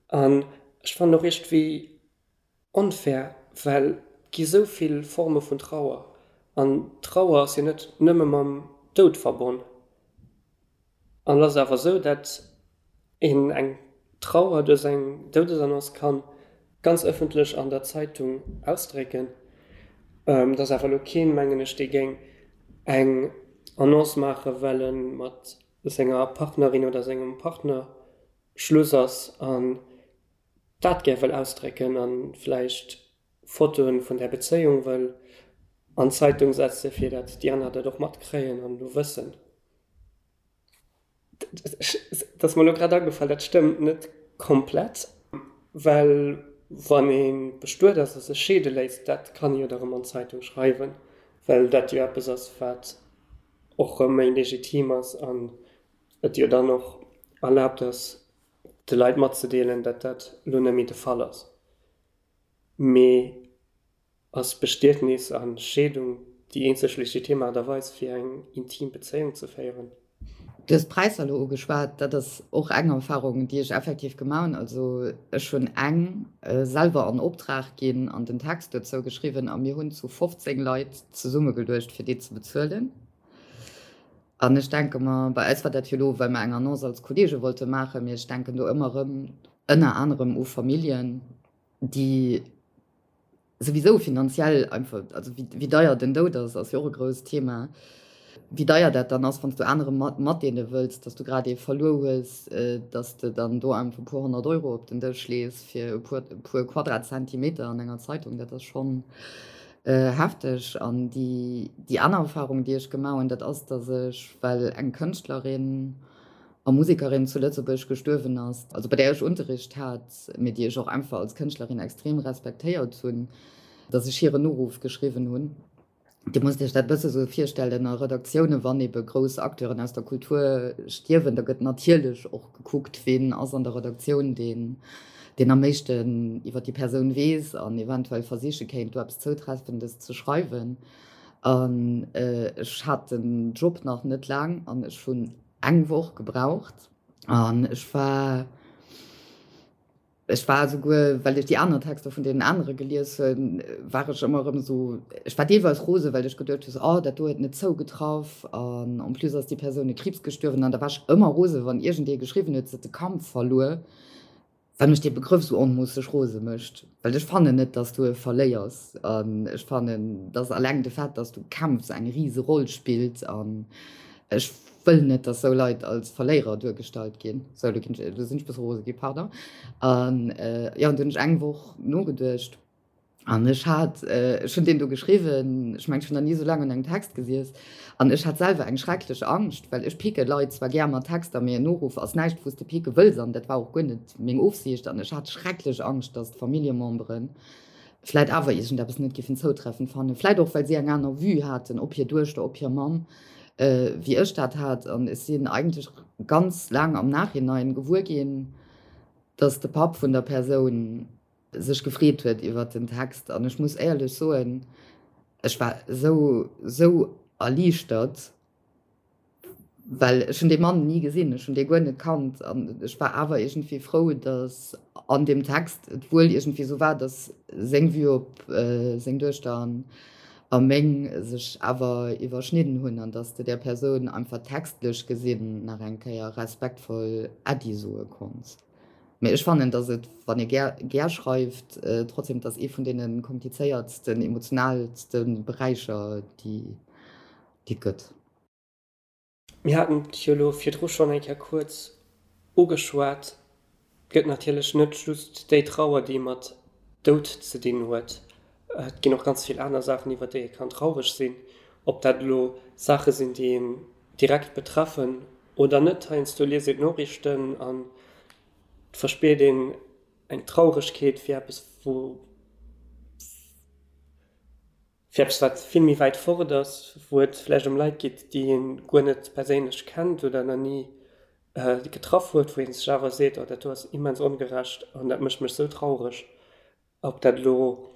An ech fannen och iergendwéi Onfair, well et gi sou vill Forme vun Trauer an Trauer ass jo net nëmme mam Doud verbonn. An et ass awer sou, dat een eng Trauer duerch eng Doudesannonce kann ganz ëffentlech an der Zeitung ausdrécken. Et ass awer elo keen, mengen ech, dee géing eng Annonce maache well e mat senger Partnerin oder sengem Partner Schluss ass an dat gär wëll ausdrécken an vläicht Fotoen vun där Bezéiung wëll an d'Zeitung setzen, fir dat déi aner dat och matkréien an elo wëssen. Dat ass mer elo grad agefall, dat stëmmt net komplett, well wann ee bestuet ass a sech scheede léisst, dat kann ee jo da rëm an d'Zeitung schreiwen, well dat jo eppes ass, wat och rëm méi legitim ass an et jo dann och erlaabt ass, de Leit matzedeelen, datt dat elo net méi de Fall ass. Mee ass Bestietnis a Scheedung déi eenzeg legitim Aart a Weis fir eng intim Bezéiung ze féieren? Du hues d'Präisser elo ugeschwat. Dat ass och eng Erfahrung, déi ech effektiv gemaach hunn. Also ech hunn eng selwer an Optrag ginn an den Text dozou geschriwwen a mir hunn zu 15 Leit zesummegeluecht, fir déi ze bezuelen. An ech denke mer, bei eis war dat jo elo, well mer eng Annonce als Kolleege wollte maachen, mee ech denken do ëmmer erëm ënner anerem u Familljen, déi souwisou finanziell einfach, also wéi deier den Doud ass, ass jo och e grousst Thema, wéi deier dat dann ass, wann s du anere matdeele wëlls, dass du grad ee verluer hues, dass de dann do einfach e puer 100 Euro op den Dësch lees fir e puer Quadratzentimeter an enger Zeitung, dat ass schonn. Hefteg. An déi, déi aner Erfahrung, déi ech gemaach hunn, dat ass, datt ech, well eng Kënschtlerin a Musekerin zu Lëtzebuerg gestuerwen ass, also bei där ech Unterricht hat, mee déi ech och einfach als Kënschtlerin extrem respektéiert hunn, datt ech hiren Noruff geschriwwen hunn. Dir musst Iech dat e bësse sou virstellen, a Redaktioune wann ebe grouss Acteuren aus der Kultur stierwen, da gëtt natierlech och gekuckt, ween ass an der Redaktioun deen, deen am meeschten iwwer déi Persoun weess an eventuell versiche kéint, do eppes Zoutreffendes ze schreiwen. An ech hat den Job nach net laang an ech hunn eng Woch gebraucht an ech war, Ech war esouguer, well ech déi aner Texter vun deenen anere gelies hunn, war ech ëmmer erëm esou, ech war deelweis rose well ech geduecht hunn, oh dat do huet net zougetraff an en plus ass déi Persoun u Kriibs gestuerwen an da war ech ëmmer rose wann iergendee geschriwwen huet, se huet de Kampf verluer, well mech dee Begrëff esou onmoosseg rose mécht, well ech fannen net, dass du e verléiers an ech fannen, dass alleng de Fait, dass du kämpfs, eng rise Roll spillt an ech wëll net, dass sou Leit als Verléierer duergestallt ginn. Sou, lo ginn ech, lo sinn ech e bësse rose ginn, pardon. An jo, an du hunn ech eng Woch nogeduecht an ech hat, ech hunn deen do geschriwwen, ech mengen, ech hunn nach ni esou laang un engem Text gesiess an ech hat selwer eng schrecklech Angscht, well ech picke Leit zwar gär mat Texter, mee en Noruff ass näischt, wou s de picke wëlls an dat war och guer net meng Ofsiicht an ech hat schrecklech Angscht, dass d'Familljememberen vläit awer iergendeppes net giffen zoutreffend fannen, vläit och well si eng aner Vue haten op hir Duechter, op hir Mamm, wéi ech dat hat. An ech sinn eigentlech ganz laang am Nachhinein gewuer ginn, dass de Papp vun der Persoun sech gefreet huet iwwert den Text. An ech muss éierlech soen, ech war esou, esou erliichtert, Well ech hunn dee Mann ni gesinn, ech hunn dee guer net kannt an ech war awer iergendwéi frou, datt an deem Text et wuel iergendwéi esou war, datt seng Vue op seng Duechter an a meng sech awer iwwerschnidden hunn an datt s de där Persoun einfach textlech gesinn nach eng Kéier respektvoll Äddi soe konns. Mee ech fannen, datt et, wann ee gär gär schreift, trotzdem, et ass ee vun deene komplizéiertsten, emotionaalste Beräicher, déi déi et gëtt. Mir haten et jo elo virdru schonn eng Kéier kuerz ugeschwat, Et gëtt natierlech net just déi Trauer, déi mat Doud ze dinn huet. Et ginn och ganz vill aner Saachen, iwwer déi ee kann traureg sinn. Ob dat elo Saache sinn, déi een direkt betreffen oder net. Heiansdo liest een d'Noriichten an et verspiert een eng Trauregkeet fir eppes, wou. Fir eppes, wat vill méi wäit fort ass, wou et vläicht ëm Leit geet, déi ee guer net perséinlech kennt oder nach ni getraff huet, wou ee sech awer seet, oh dat do ass immens ongerecht an dat mécht mech sou traureg. Ob dat elo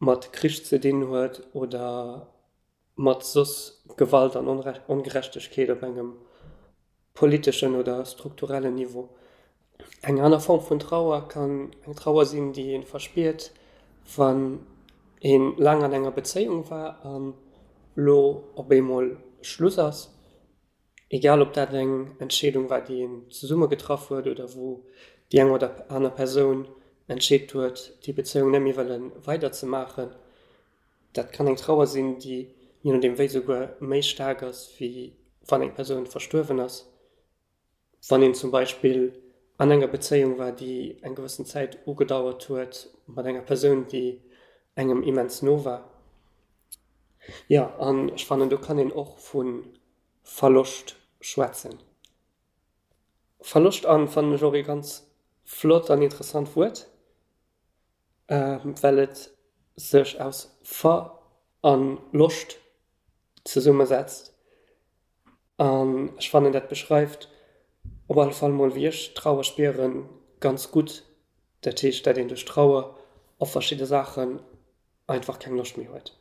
mat Krich ze dinn huet oder mat soss Gewalt an Ongerechtegkeet op engem politeschen oder strukturellen Niveau. Eng aner Form vun Trauer kann eng Trauer sinn, déi ee verspiert, wann ee laang an enger Bezéiung war an lo op eemol Schluss ass. Egal ob dat eng Entscheedung war, déi een zesumme getraff huet oder wou déi eng oder aner Persoun entscheet huet, déi Bezéiung net méi wëlle weiderzemaachen. Dat kann eng Trauer sinn, déi je nodeem wéi souguer méi staark ass, wéi wann eng Persoun verstuerwen ass. Wann een zum Beispill an enger Bezéiung war, déi eng gewëssen Zäit ugedauert huet, mat enger Persoun, déi engem immens no war. Jo, an ech fannen, do kann een och vu Verloscht schwätzen. Verloscht an fannen ech och ee ganz flott an interessant Wuert. Well et sech aus Ver an Loscht zesummesetzt. An ech fannen dat beschreift op alle Fall mol wéi ech Trauer spieren ganz gutt. Dat heescht dat een duerch Trauer op verschidde Saachen einfach keng Loscht méi huet.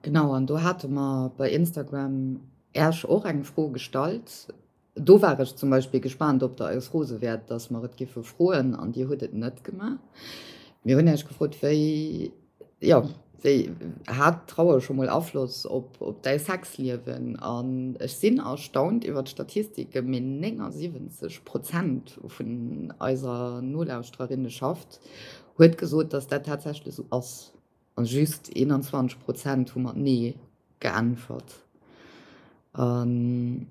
Genau, an do hate mer bei Instagram Äerch och eng Fro gestallt. Do war ech zum Beispill gespaant, ob Der eis rose wäert, dass mer et giffe froen, an Dir hutt et net gemaach. Mir hunn Äech gefrot, wéi, jo, wéi hat Trauer scho mol Afloss op, op däi Sexliewen? An ech sinn erstaunt iwwer d'Statistike, mee 79 Prozent vun eiser Nolauschtererinneschaft huet gesot, dass dat tatsächlech esou ass. A just 21 Prozent hu mat Nee geäntwert. An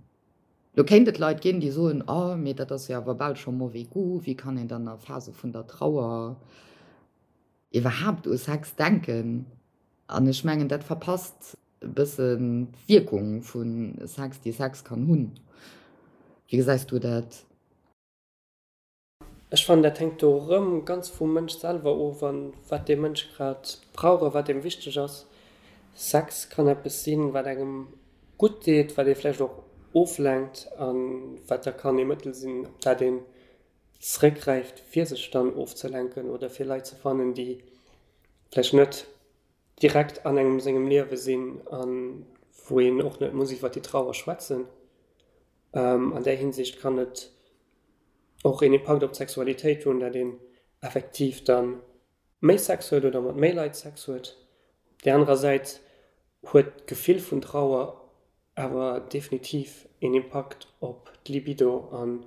lo kéint et Leit ginn, déi soen, Oh, mee dat ass jo awer bal scho mauvais goût, wéi kann een dann a Phase vun der Trauer. iwwerhaapt u Sex denken. An ech mengen, dat verpasst e bëssen d'Wierkung vu Sex, déi Sex kann hunn. Wéi gesäis du dat? Ech fannen, dat hänkt do erëm ganz vum Mënsch selwer of an wat dee Mënsch grad brauch a wat deem wichteg ass. Sex kann eppes sinn, wat engem gutt deet, wat ee vläicht och oflenkt a wat da kann ee Mëttel sinn, op dat een zeréckgräift, fir sech dann ofzelenken oder fir Leit ze fannen, déi vläicht net direkt an engem sengem Liewe sinn a wou een och net muss iwwer déi Trauer schwätzen. An där Hinsicht kann et och een Impakt op d'Sexualitéit hunn, dat een effektiv da méi Sex huet oder mat méi Leit Sex huet. Op där anerer Säit huet d'Gefill vun Trauer awer definitiv een Impakt op d'Libido an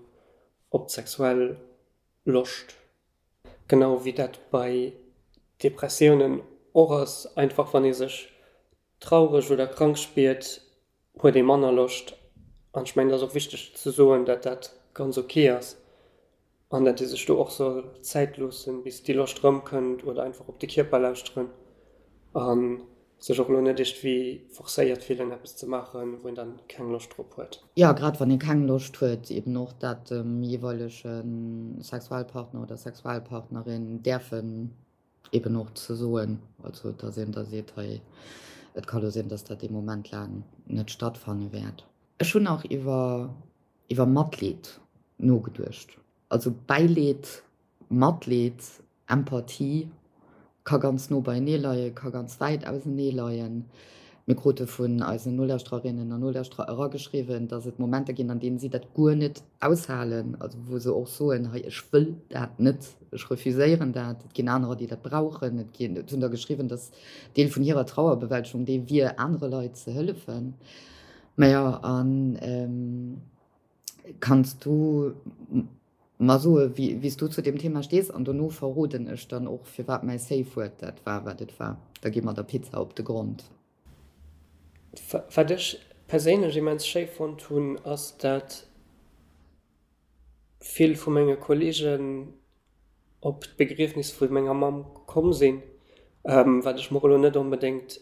op d'sexuell Loscht. Genau wéi dat bei Depressiounen och ass, einfach wann ee sech traureg oder krank spiert, huet ee manner Loscht. An ech mengen, et ass och wichteg ze soen, datt dat ganz ok ass an datt ee sech do och soll Zäit loossen, bis déi Loscht erëmkënnt oder einfach op de Kierper lauschteren a sech och elo net iergendwéi forcéiert fillen, eppes ze maachen, wou een dann keng Loscht drop huet. Jo, grad wann ee keng Loscht huet, eben och dat dem jeeweilege Sexualpartner oder Sexualpartnerin däerfen eben och ze soen, also dass een da seet, hei, et ka lo sinn, dass dat ee Moment laang net stattfanne wäert. Ech hunn nach iwwer iwwer Matleed nogeduecht. Also Bäileed, Matleed, Empathie ka ganz no beienee leien, ka ganz wäit ausenee leien. Mir krute vun eisen Nolauschtererinnen an Nolauschterer erageschriwwen, dass et Momenter ginn, an deenen si dat guer net aushalen, also wou se och soen, hei ech wëll dat net, ech refuséieren dat. Et ginn anerer, déi dat brauchen. Et ginn, et hunn der geschriwwen, dass Deel vun hirer Trauerbewältegung dee wier, anere Leit ze hëllefen. Majo, an kanns du Mer soe wéi s du zu deem Thema stees an dono verroden ech dann och firwat mäi Safe Word dat war wat et war. Da gi mer der Pizza op de Grond. Wat ech perséinlech immens schéi fonnt hunn, ass dat vill vu menge Kollegen op d'Begriefnis vu menger Mamm komm sinn, wat ech mer elo net onbedéngt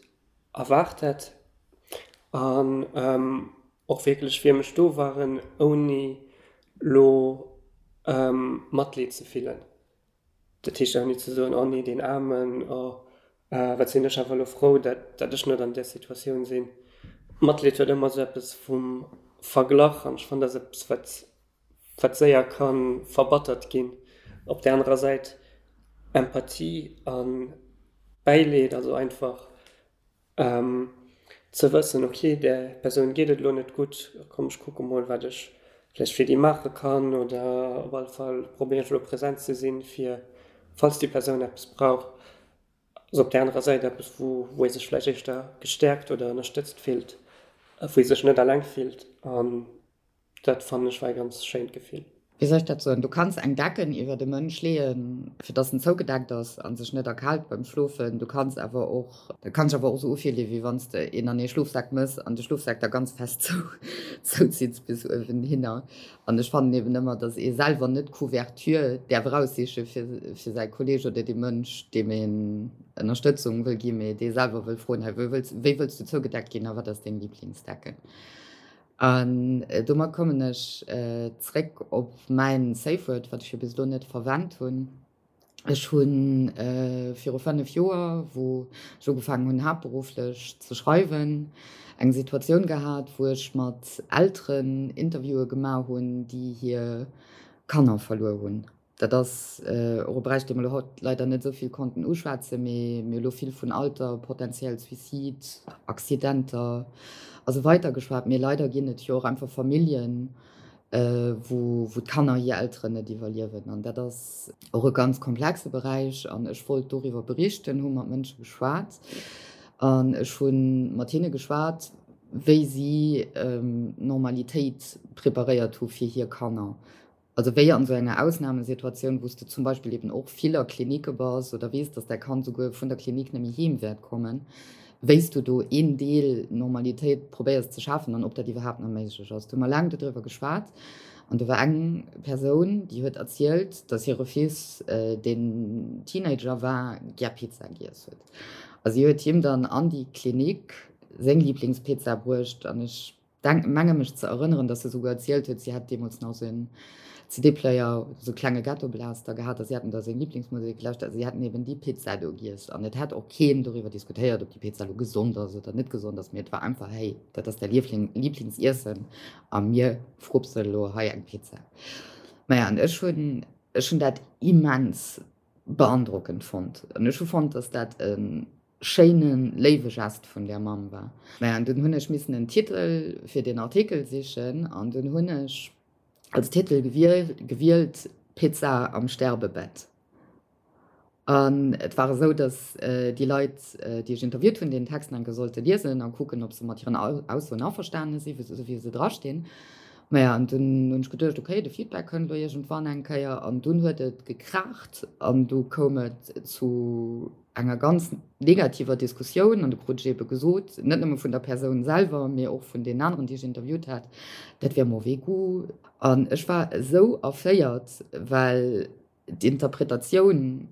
erwaart hätt. An och wierklech fir mech do waren, ouni lo Matleed ze fillen. Dat heescht ouni ze soen, oh nee, deen Aarmen, oh wat sinn ech awer elo frou, dat dat ech net an där Situatioun sinn. Matleed huet ëmmer esou eppes vum Verglach an ech fannen, dat ass eppes, wat wat séier ka verbattert ginn. Op där anerer Säit Empathie a Bäileed, also einfach Ze wëssen, ok, där Persoun geet et elo net gutt, komm ech kucke mol wat ech vläicht fir déi maache kann oder op alle Fall probéieren ech elo present ze sinn, fir falls déi Persoun eppes brauch. Ass op där anerer Säit eppes, wou wou ee sech vläicht éischter gestäerkt oder ënnerstëtzt fillt, wou ee sech net alleng fillt an Dat fannen ech war e ganz schéint Gefill. Wéi soll ech dat soen, du kanns eng Decken iwwert e Mënsch leeën, fir dass en zougedeckt ass a sech net erkaalt beim Schlofen. Du kanns awer och, dat kann sech awer och esou ufillen, wéi wann s de een an ee Schlofsak mëss an de Schlofsak da ganz fest zou zouzitts bis uewen hinner. An ech fannen eben ëmmer, dass ee selwer net d'Couverture däerf eraussiche fir fir säi Kolleeg oder dee Mënsch, deem een Ënnerstëtzung wëll ginn, mee dee selwer wëll froen, hei wéi wëlls wéi wëlls du zougedeckt ginn a wat ass deng Liblingsdecken? An domat kommen ech zréck op mäin Safe Word, wat ech jo bis elo net verwennt hunn. Ech hu viru 5 Joer, wou ech ugefaangen hunn haaptberufflech ze schreiwen, eng Situatioun gehat, wou ech mat Elteren Interviewe gemaach hunn, déi hir Kanner verluer hunn. Dat ass och e Beräich, dee mer elo haut leider net esou vill konnten uschwätzen, mee mir hu elo vill vun Alter, potentiell Suicide, Accidenter a sou weiter geschwat. Mee leider ginn et jo och einfach Familljen, wou d'Kanner hir Elteren net iwwerliewen. An dat ass och e ganz komplexe Beräich. An ech wollt doriwwer berichten, hu mat Mënsche geschwat an ech hu mat hinne geschwat, wéi si Normalitéit preparéiert hu fir hir Kanner. Also wéi an esou enger Ausnamesituatioun, wou s de zum Beispill eben och vill a Klinicke bass oder weess, dass däi Kand souguer vun der Klinik net méi heem wäert kommen, wéi s du do een Deel Normalitéit probéiers ze schafen an ob dat iwwerhaapt nach méiglech ass. Do hu mer laang dodriwwer geschwat. An do war eng Persoun, déi huet erzielt, dass hire Fils, deen Teenager war, gär Pizza giess huet. A si huet him dann an déi Klinik seng Liblingspizza bruecht. An ech denk, menge mech ze erënneren, dass se souguer erzielt huet, si hätt deemools nach esou en CD-Player, esou e klenge Ghettoblaster gehat a si hätten da seng Liblingsmusek gelauschtert a si hätten eben déi Pizza do giess. An et hätt och keen doriwwer diskutéiert, ob déi Pizza elo gesond ass oder net gesond ass, mee et war einfach, hey, dat ass däi Liefling, Lieblingsiessen a mir frupsen elo hei eng Pizza. Maja, an ech hunn, ech hunn dat immens beandrockend fonnt an ech hu fonnt, dass dat e schéine léiwe Gest vun där Mamm war. Maja, an dunn hunn ech missen en Titel fir deen Artikel sichen an dunn hunn ech als Titel gewielt Pizza am Sterbebett. An et war esou, datt déi Leit, déi ech interviewt hunn, deen Text nach eng Kéier sollte liesen a kucken, ob se mat hiren Aussoen averstane sinn, esou wéi se drastinn. Maja, an dunn hunn ech geduecht, okay, de Feedback kënnt elo iergendwann eng Kéier. An dunn huet et gekraacht an du koum et zu enger ganz negativer Diskussioun. An du krut ech eebe gesot, net nëmme vun der Persoun selwer, mee och vun deenen aneren, déi ech interviewt hat, dat wier mauvais goût. An ech war esou erféiert, well d'Interpretatioun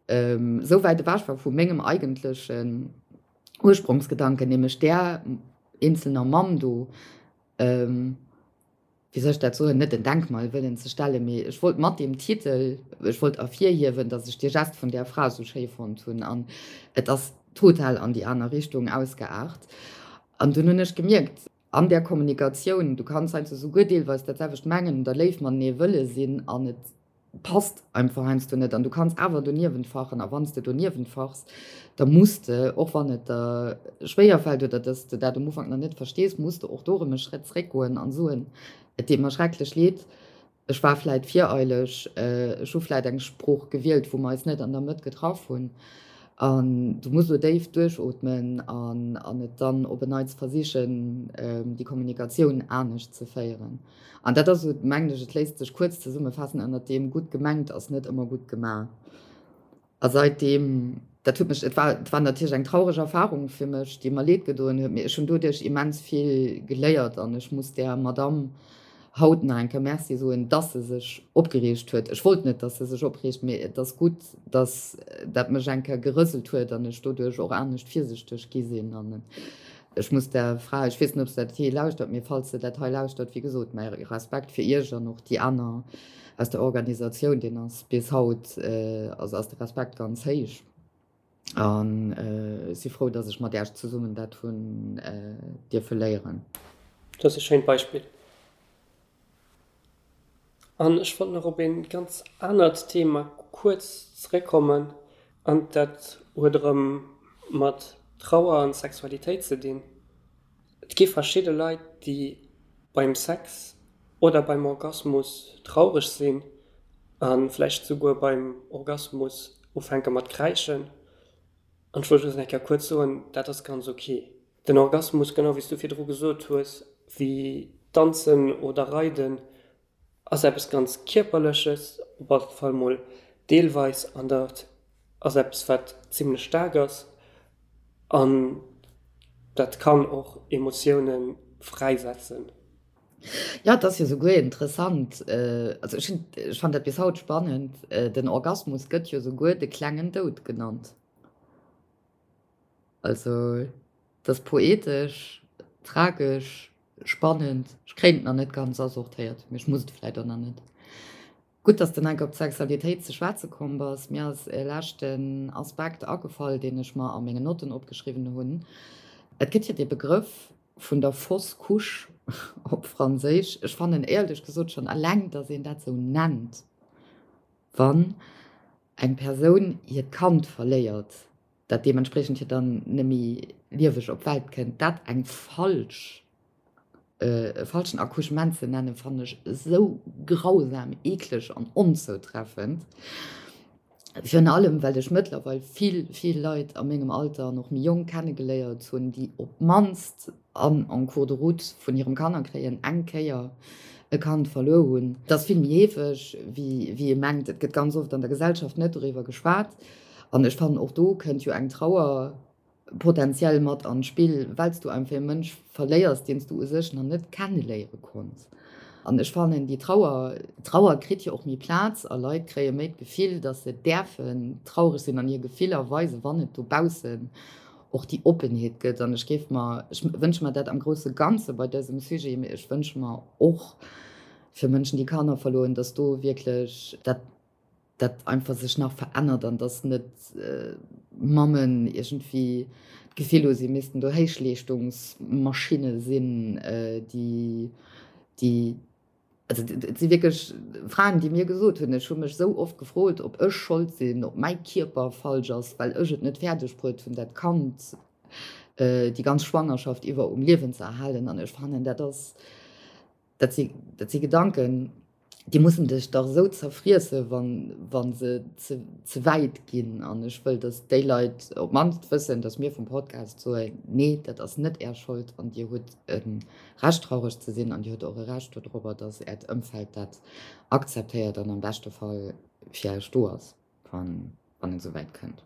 esou wäit ewech war vu mengem eigentlechen Ursprongsgedanken, nämlech där eenzelner Mamm do, wéi soll ech dat soen, net en Denkmal wëllen ze stellen, mee ech wollt mat deem Titel, ech wollt ervirhiewen, datt ech dee Gest vun där Fra esou schéi fonnt hunn an et ass total an déi aner Richtung ausgeaart. An dunn hunn ech gemierkt, an där Kommunikatioun, du kanns heiansdo souguer deelweis dat selwecht mengen oder léif matenee wëlle sinn an et passt einfach heiansdo net an du kanns awer doniewent fachen a wann s de doniewent fachs, da muss de, och wann et der schwéier fält oder dass de dat um Ufank nach net verstees, muss de och do erëm e Schrëtt zréckgoen an soen, et deet mer schrecklech leed, Ech war vläit vireileg, ech hu vläit eng Sprooch gewielt, wou mer eis net an der Mëtt getraff hunn. An du muss elo déif duerchootmen an an et dann op en Neits versichen, déi Kommunikatioun anescht ze féieren. An dat ass esou, mengen ech, et léisst sech kuerz zesummefaassen ënnert deem, gutt gemengt ass net ëmmer gutt gemaach. A seitdeem, dat huet mech, et war, et war natierlech eng traureg Erfahrung fir mech, déi mer Leed gedoen huet, mee ech hunn doduerch immens vill geléiert an ech muss där Madamm haut nach eng Kéier Merci soen, dass se sech opgereegt huet. Ech wollt net, dass se sech opreegt, mee et ass gutt, dass dat mech eng Kéier gerëselt huet an ech doduerch och anescht virsichteg gi sinn. An ech muss där Fra, ech weess net, ob se dat hei lauschtert, mee falls se dat hei lauschtert, wéi gesot, mäi Respekt fir Iech an och déi aner, Aus der Organisatioun, deen ass bis haut, also ass de Respekt ganz héich an ech si frou, datt ech mat Iech zesummen dat hunn dierfe léieren. Dat ass e schéint Beispill. An ech wollt nach op ee ganz anert Thema kuerz zeréckkommen, an dat huet erëm mat Trauer an Sexualitéit ze dinn. Et gi verschidde Leit, déi beim Sex oder beim Orgasmus traureg sinn a vläicht souguer beim Orgasmus ufänke mat kräischen. An ech wollt just eng Kéier kuerz soen, dat ass ganz ok. Den Orgasmus, genau wéi s du virdru gesot hues, wéi Danzen oder Reiden, ass eppes ganz Kierperleches, op alle Fall mol deelweis, an dat ass eppes wat zimlech staark ass an dat kann och Emotioune fräisetzen. Jo, et ass jo souguer interessant, also ech hunn, ech fannen dat bis haut spannend, den Orgasmus gëtt jo souguer de klengen Doud genannt. Also et ass poetesch, tragesch, spannend. Ech kréien et nach net ganz asortéiert, mee ech muss et vläit och nach net. Gutt, dass de nach op d'Sexualitéit ze schwätze komm bass. Mir ass e leschten Aspekt agefall, deen ech mer a mengen Notten opgeschriwwen hunn. Et gëtt jo dee Begrëff vun der fausse couche op Franséisch. Ech fannen éierlech gesot schonn eleng, dass een dat esou nennt, wann eng Persoun hiert Kand verléiert, dat deementspriechend jo dann net méi lieweg op d'Welt kënnt, dat eng falsch, e falschen Accouchement ze nennen, fannen ech esou grausam, eekleg an onzoutreffend. Virun allem, well ech mëttlerweil vill, vill Leit a mengem Alter an och méi jonk kennegeléiert hunn, déi op d'mannst an en cours de route vun hirem Kannerkréien eng Kéier e Kand verluer hunn. Et ass vill méi heefeg, wéi ee mengt. Et gëtt ganz oft an der Gesellschaft net doriwwer geschwat. An ech fannen, och do kënnt jo eng Trauer potenziell mat an d'Spill, well s du einfach e Mënsch verléiers, deen s du u sech nach net kenneléiere konns. An ech fannen déi Trauer, Trauer kritt jo och méi Plaz a Leit kréie méi d'Gefill, datt se däerfen traureg sinn an hir Gefiller weisen, wann et dobaussen och déi Oppenheet gëtt. An ech géif mer, ech wënsche mer dat am grousse Ganze bei dësem Sujet, mee ech wënsche mer och fir Mënschen, déi Kanner verluer hunn, datt do wierklech dat, dat einfach sech nach verännert an dass net Mammen iergendwéi d'Gefill hu si missten do Héichleeschtungsmaschinne sinn, déi, déi, also et si wierklech Fraen, déi mir gesot hunn, ech hu mech esou oft gefrot, ob ech Schold sinn, ob mäi Kierper falsch ass, well ech et net fäerdeg bruet hunn, dat Kand déi ganz Schwangerschaft iwwer um Liewen ze erhalen. An ech fannen, dat ass, Dat si, dat si Gedanken, déi mussen dech dach esou zerfriesse wann, wa se ze, ze wäit ginn. An ech wëll, datt déi Leit op d'mannst wëssen, datt mir vum Podcast soen, Nee, dat ass net Är Schold an Dir hutt e Recht traureg ze sinn an Dir hutt och e Recht dodrobber, datt Äert Ëmfeld dat akzeptéiert an am beschte Fall fir Iech do ass, wann, wann et esou wäit kënnt.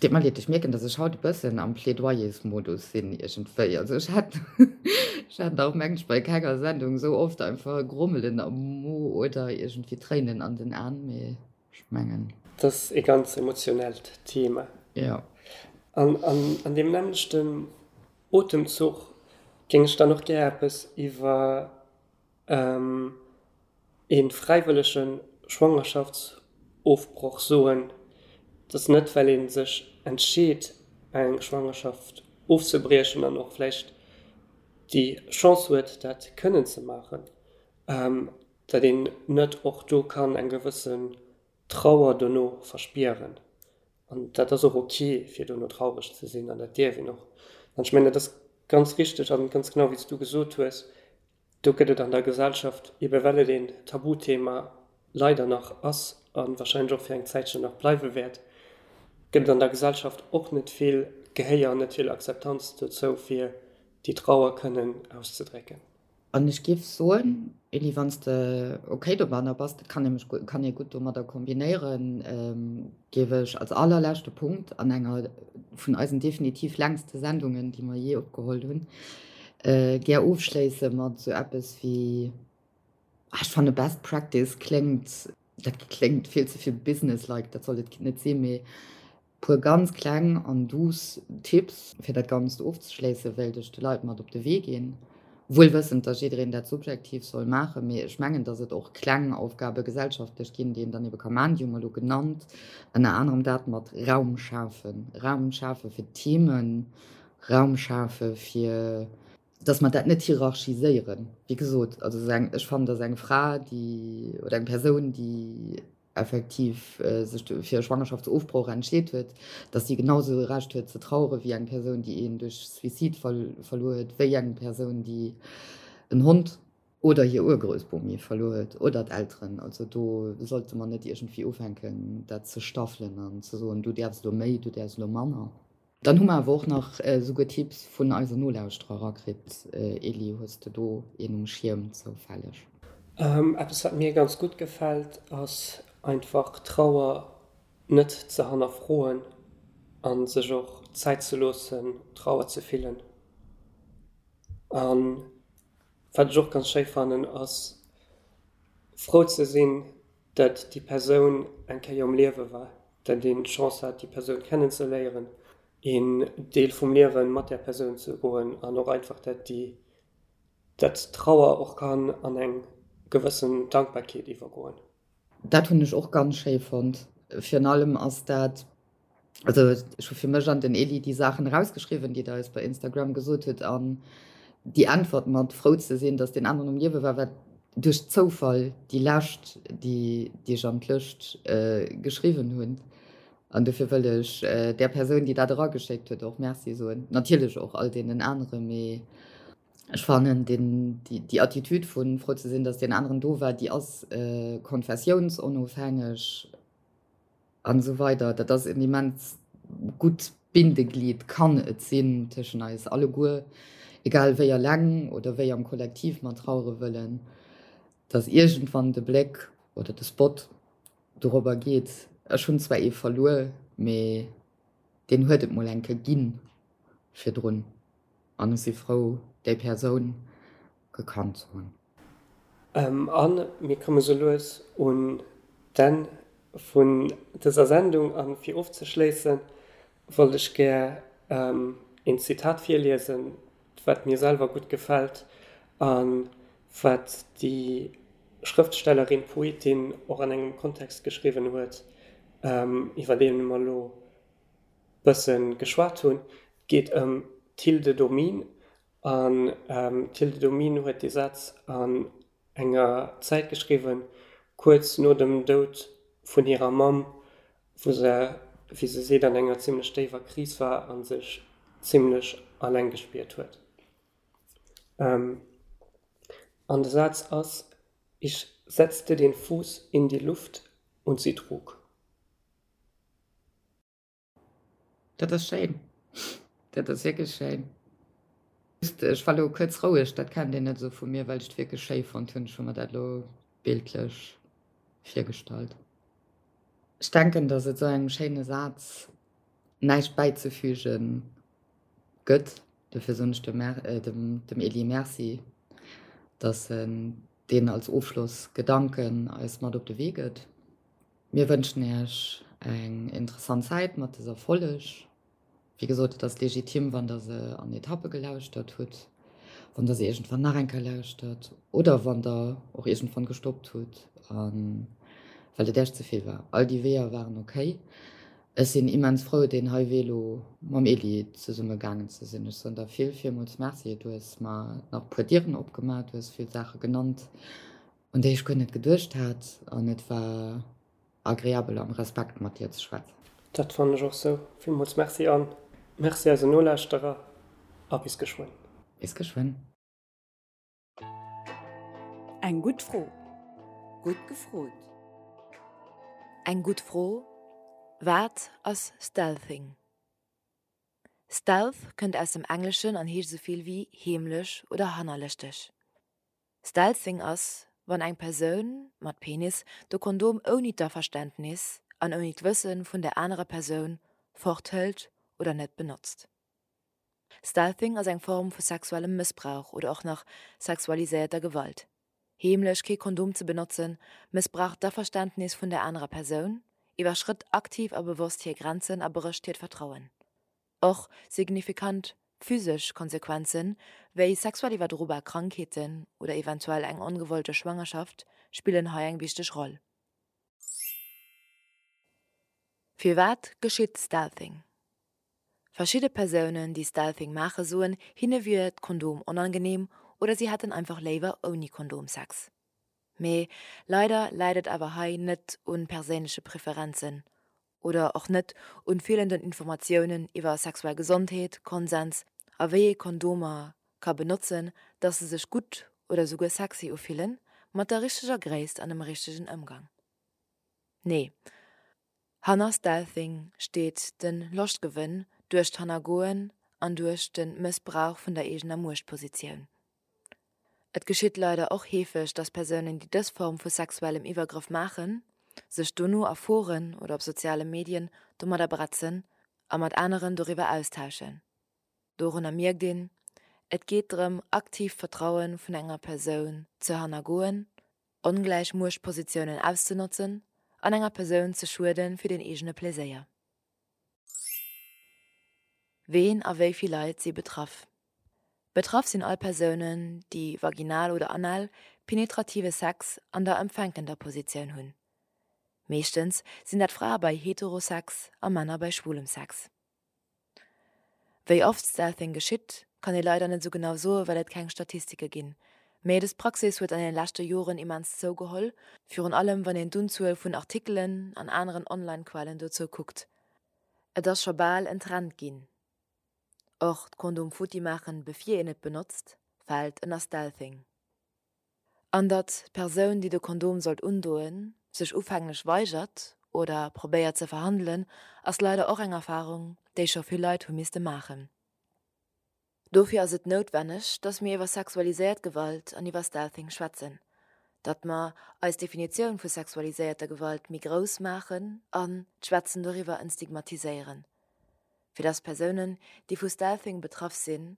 Deet mer leed, ech mierken, dass ech haut e bëssen am Plädoyersmodus sinn iergendwéi. Also ech hat, ech hat nach mengen ech bei kenger Sendung esou oft einfach e Grommelen am Mo oder iergendwéi Tréinen an den An, mee ech mengen. Et ass e ganz emotionellt Thema. Jo. An an deem nämmlechten Otemzuch géing ech dann och gär eppes iwwer Ee fräiwëllege Schwangerschaftsofbroch soen, dass net well ee sech entscheet eng Schwangerschaft ofzebriechen an och vläicht déi Chance huet dat kënnen ze maachen, datt een net och do kann eng gewëssen Trauer dono verspieren. An dat ass och ok fir dono traureg ze sinn an dat dierf een och. An ech mengen dat ass ganz richteg an ganz genau wéi s du gesot hues, Do gëtt et an der Gesellschaft, ebe well et een Tabuthema leider nach ass a wahrscheinlech och fir eng Zäitchen nach bleiwe wäert, gëtt et an der Gesellschaft och net vill Gehéier an net vill Akzeptanz dozou, fir déi Trauer kënnen auszedrécken. An ech géif soen, Elie, wann s de ok domadder bass, dat kann nämlech kann ee gutt domadder kombinéieren, géif ech als allerleschte Punkt an enger vun eisen definitiv längste Sendungen, déi mer jee opgeholl hunn, gär ofschléisse mat esou eppes wéi, ah, ech fanne Best Practice kléngt, dat kléngt vill ze vill businesslike, dat soll et net sinn, mee Puer ganz kleng an douce Tipps fir dat Ganzt ofzeschléissen, wéilt ech de Leit mat op de Wee ginn. Wuel wëssend, dass jiddereen dat subjektiv soll maachen, mee ech mengen, dass et och kleng Aufgabe gesellschaftlech ginn, déi een dann ebe ka maachen. Déi hu mer elo genannt, ënner anerem dat mat Raum schafen, Raum schafe fir d'Themen, Raum schafe fir, dass mer dat net hierarchiséieren. Wéi gesot, also eng, ech fannen, dass eng Fra, déi, oder eng Persoun, déi effektiv sech fir e Schwangerschaftsofbroch entscheet huet, datt si genau esou e Recht huet ze trauere wéi eng Persoun, déi een duerch Suicide verluer huet, wéi eng Persoun, déi en Hond oder hir Urgroussbomi verluer huet oder d'Elteren. Also do sollte mer net iergendwéi ufänken, dat ze staffelen an ze soen, du däerfs elo méi, du däerfs elo manner. Dann hu mer awer och nach esouguer Tipps vun eisen Nolauschterer erakritt. Elie, hues de do een um Schierm zoufälleg? Eppes wat mir ganz gutt gefält ass einfach Trauer net ze hannerfroen an sech och Zäit ze loossen Trauer ze fillen. An wat ech och ganz schéi fannen ass frou ze sinn dat déi Persoun eng Kéier um Liewe war, dat een d'Chance hat, déi Persoun kennenzeléieren, een Deel vum Liewe mat där Persoun ze goen an och einfach, dat déi, dat d'Trauer och kann an eng gewëssen Dankbarkeet iwwergoen. Dat hunn ech och ganz schéi fonnt. Virun allem ass dat Also ech hu fir mech an den Elie déi Saachen erausgeschriwwen, déi der eis bei Instagram gesot hutt an déi Äntwert mat frou ze sinn, datt deen aneren um Liewe war, war duerch Zoufall déi lescht, déi déi ech an d'Lëscht geschriwwen hunn. An dofir wëll ech där Persoun, déi dat erageschéckt huet, och Merci soen. Natierlech och all deenen anere, mee ech fannen deen, déi déi Attitude vu frou ze sinn, datt deen aneren do war, déi ass konfessiounsonofhängeg. An esou weider. Dat ass en immens gutt Bindeglied, kann et sinn, tëschen eis alleguer, egal wéi eleng oder wéi am Kollektiv mer trauere wëllen, dass iergendwann de Bléck oder de Spot dorobber geet, ech hunn zwar ee verluer, mee deen huet et mol eng Kéier ginn virdrun an ech si frou, déi Persoun. gekannt ze hunn. A mir komme sou lues un d'Enn vun dëser Sendung a fir ofzeschléisse wollt ech gär een Zitat virliesen, wat mir selwer gutt gefält a wat déi Schrëftstellerin, Poetin och an engem Kontext geschriwwen huet, iwwer dee mer elo bësse geschwat hunn. Et geet ëm d'Hilde Domin An d'Hilde Domin huet dee Saz an enger Zäit geschriwwen, kuerz no dem Doud vun hirer Mamm, wou se, wéi se seet, an enger zimmlech déiwer Kris war a sech zimmlech alleng gespiert huet. An de Saz ass, Ich setzte den Fuß in die Luft und sie trug. Dat ass schéin. Dat ass wierklech schéin. Ech war lo kuerz roueg, dat kennt een net esou vu mir, well ech et wierklech schéi fonnt hunn. Ech hu mer dat lo bildlech virgestallt. Ech denken, datt et esou engem schéine Saz näischt bäizefüge gëtt. Dofir soen ech dem Elie Merci, datt en deen als Ofschlossgedanken eis mat op de Wee gëtt. Mir wënschen Iech eng interessant Zäit mat dëser Folleg. Wéi gesot, et ass legitim, wann der se an Etappe gelauschtert hutt, wann der se iergendwann nach eng Kéier lauschtert oder wann der och iergendwann gestoppt hutt, well et Iech ze vill war. All déi Weeër waren ok. Ech sinn immens frou, deen hei Wee elo mam Elie zesumme gaangen ze sinn. Ech soen der vill, villmools Merci. Du hues mer nach e puer Dieren opgemaach, du hues vill Saache genannt, un déi ech guer net geduecht hat an et war agreabel am Respekt mat dir ze schwätzen. Dat fannen ech och sou. Villmools Merci an Merci eisen Nolauschterer a bis geschwënn. Bis geschwënn. Eng gutt Fro. Gutt gefrot. Eng gutt Fro, Wat ass Stealthing? Stealth kënnt aus dem Engleschen an heescht esou vill wéi heemlech oder hannerlëschteg. Stealthing ass, wann eng Persoun, mat Penis, de Kondom ouni d'Averständnis an ouni d'Wësse vun der anerer Persoun forthëlt oder net benotzt. Stealthing ass eng Form vu sexuellem Mëssbrauch oder och nach sexualiséierter Gewalt. Heemlech kee Kondom ze benotzen, mëssbraucht d'Averständnis vun der anerer Persoun, iwwerschrëtt aktiv a bewosst hir Grenzen a brécht hiert Vertrauen. Och signifikant physesch Konsequenzen, wéi sexuell iwwerdrobar Krankheeten oder eventuell eng ongewollte Schwangerschaft, spillen hei eng wichteg Roll. Firwat geschitt Stealthing? Verschidde Persounen, déi Stealthing maache soen, hinne wier d'Kondom onangeneem oder si hätten einfach léiwer ouni Kondom Sex. Mee leider läit et awer hei net un perséinleche Preferenzen oder och net un feelenden Informatiounen iwwer sexuell Gesondheet, Konsens a wéi ee Kondomer ka benotzen, dass se sech gutt oder souguer sexy ufillen, mat der richteger Gréisst an dem richtegen Ëmgang. Nee, hanner Stealthing steet de Loschtgewënn duerch d'Hannergoen an duerch de Mëssbrauch vun der eegener Muechtpositioun. Et geschitt leider och heefeg, dass Persounen, déi dës Form vu sexuellem Iwwergrëff maachen, sech dono a Foren oder op soziale Medien domadder bretzen a mat aneren doriwwer austauschen. Dorunner mierkt een, Et geet drëm, aktiv d'Vertraue vun enger Persoun ze hannergoen, ongläich Muechtpositiounen auszenotzen an enger Persoun ze schuede fir den eegene Pleséier. Ween a wéi vill Leit si betraff? Betraff sinn all Persounen, déi vaginal oder anal penetrative Sex an der empfänkender Positioun hunn. Meeschtens sinn dat Frae bei Heterosex a Männer bei schwulem Sex. Wéi oft Stealthing geschitt, kann ee leider net esou genau soe well et keng Statistike ginn. Mee dës Praxis huet an den leschte Joren immens zougeholl, virun allem wann een d'Unzuel vun Artikelen an aneren Online-Quellen dozou kuckt. Et ass scho bal en Trend ginn. Och d'Kondom futti maachen bevir een et benotzt, fält ënner Stealthing. An datt d'Persoun déi de Kondom sollt undoen, sech ufänglech weigert oder probéiert ze verhandelen, ass leider och eng Erfarung déi scho vill Leit hu misste maachen. Dofir ass et noutwenneg, datt mir iwwer sexualiséiert Gewalt an iwwer Stealthing schwätzen, datt mer eis Definitioun vu sexualiséierter Gewalt méi grouss maachen an d'Schwätzen doriwwer entstigmatiséieren. fir dass Persounen, déi vu Stealthing betraff sinn,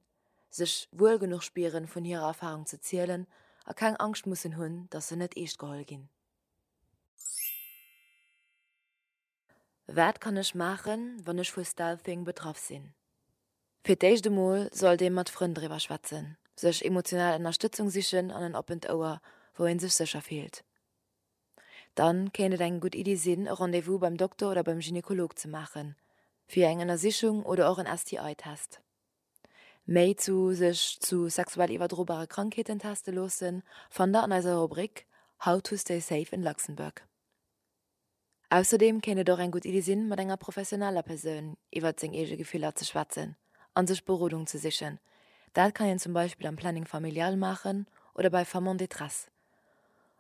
sech wuel genuch spieren, vun hirer Erfarung ze zielen a keng Angscht mussen hunn, dass se net eescht geholl ginn. Wat kann ech maachen, wann ech vu Stealthing betraff sinn? Fir d'éischt emol sollt ee mat Frënn driwwer schwätzen, sech emotional Ënnerstëtzung sichen an en oppent Ouer, wou ee sech sécher fillt. Dann kéint et eng gutt Iddi sinn, e Rendez-vous beim Dokter oder beim Gynekolog ze maachen, fir eng Ënnersichung oder och en STI-Test. Méi zu sech zu sexuell iwwerdrobare Krankheeten teste loossen, fannt der an eiser Rubrik How to stay safe in Luxembourg. Ausserdeem kéint et och eng gutt Iddi sinn, mat enger professioneller Persoun iwwert seng eege Gefiller ze schwätzen a sech Berodung ze sichen. Dat kann een zum Beispill am Planning Familial maachen oder bei Femmes en détresse.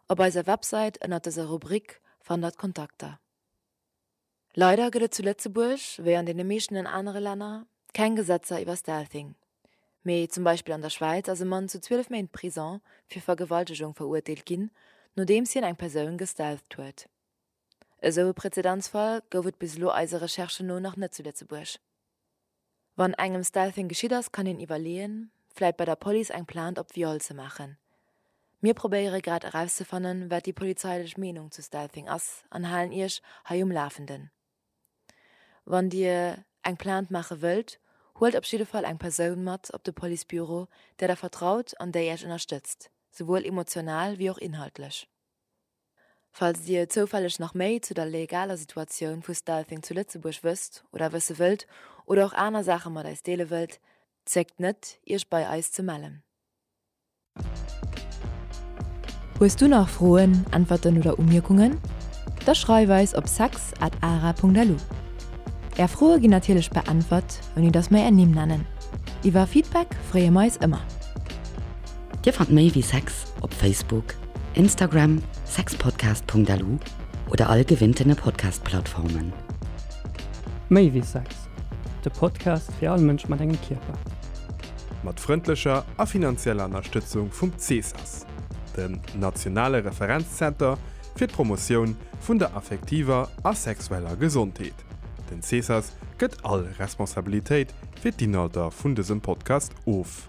Op eiser Websäit ënnert dëser Rubrik fannt der d'Kontakter. Leider gëtt et zu Lëtzebuerg, wéi an deene meeschten anere Länner, keng Gesetzer iwwer Stealthing. Mee zum Beispill an der Schwäiz ass e Mann zu 12 Méint Prison fir Vergewaltegung verurteelt ginn, nodeems hien eng Persoun gestealtht huet. Esou e Prezedenzfall gouf et bis elo eise Recherchen no nach net zu Lëtzebuerg. Wann engem Stealthing geschitt ass, kann een iwwerleeën, vläit bei der Police eng Plainte op Viol ze maachen. Mir probéiere grad erauszefannen, wat déi polizeilech Meenung zu Stealthing ass an halen Iech hei um Lafenden. Wann Dir eng Plainte maache wëllt, huelt op jidde Fall eng Persoun mat op de Policebüro, där Der vertraut an déi Iech ënnerstëtzt, souwuel emotional wéi och inhaltlech. Falls Dir zoufälleg nach méi zu der legaler Situatioun vu Stealthing zu Lëtzebuerg wësst oder wësse wëllt oder och aner Saache mat eis deele wëllt, zéckt net, Iech bei eis ze mellen. Hues du nach Froen, Äntwerten oder Umierkungen? Da schreif eis op sex at ara.lu. Är Froe ginn natierlech beäntwert, ouni dass mer är Nimm nennen. Iwwer Feedback freeë mer eis ëmmer. Dir fannt méi wéi Sex op Facebook, Instagram, sexpodcast.lu oder all gewinntene Podcast-Plattformen. Méi wéi Sex, de Podcast fir all Mënsch mat engem Kierper. Mat frëndlecher a finanzieller Ënnerstëtzung vum CESAS, dem nationale Referenzzenter fir d'Promotioun vun der affektiver a sexueller Gesondheet. Den CESAS gëtt all Responsabilitéit fir d'Inhalter vun dësem Podcast of.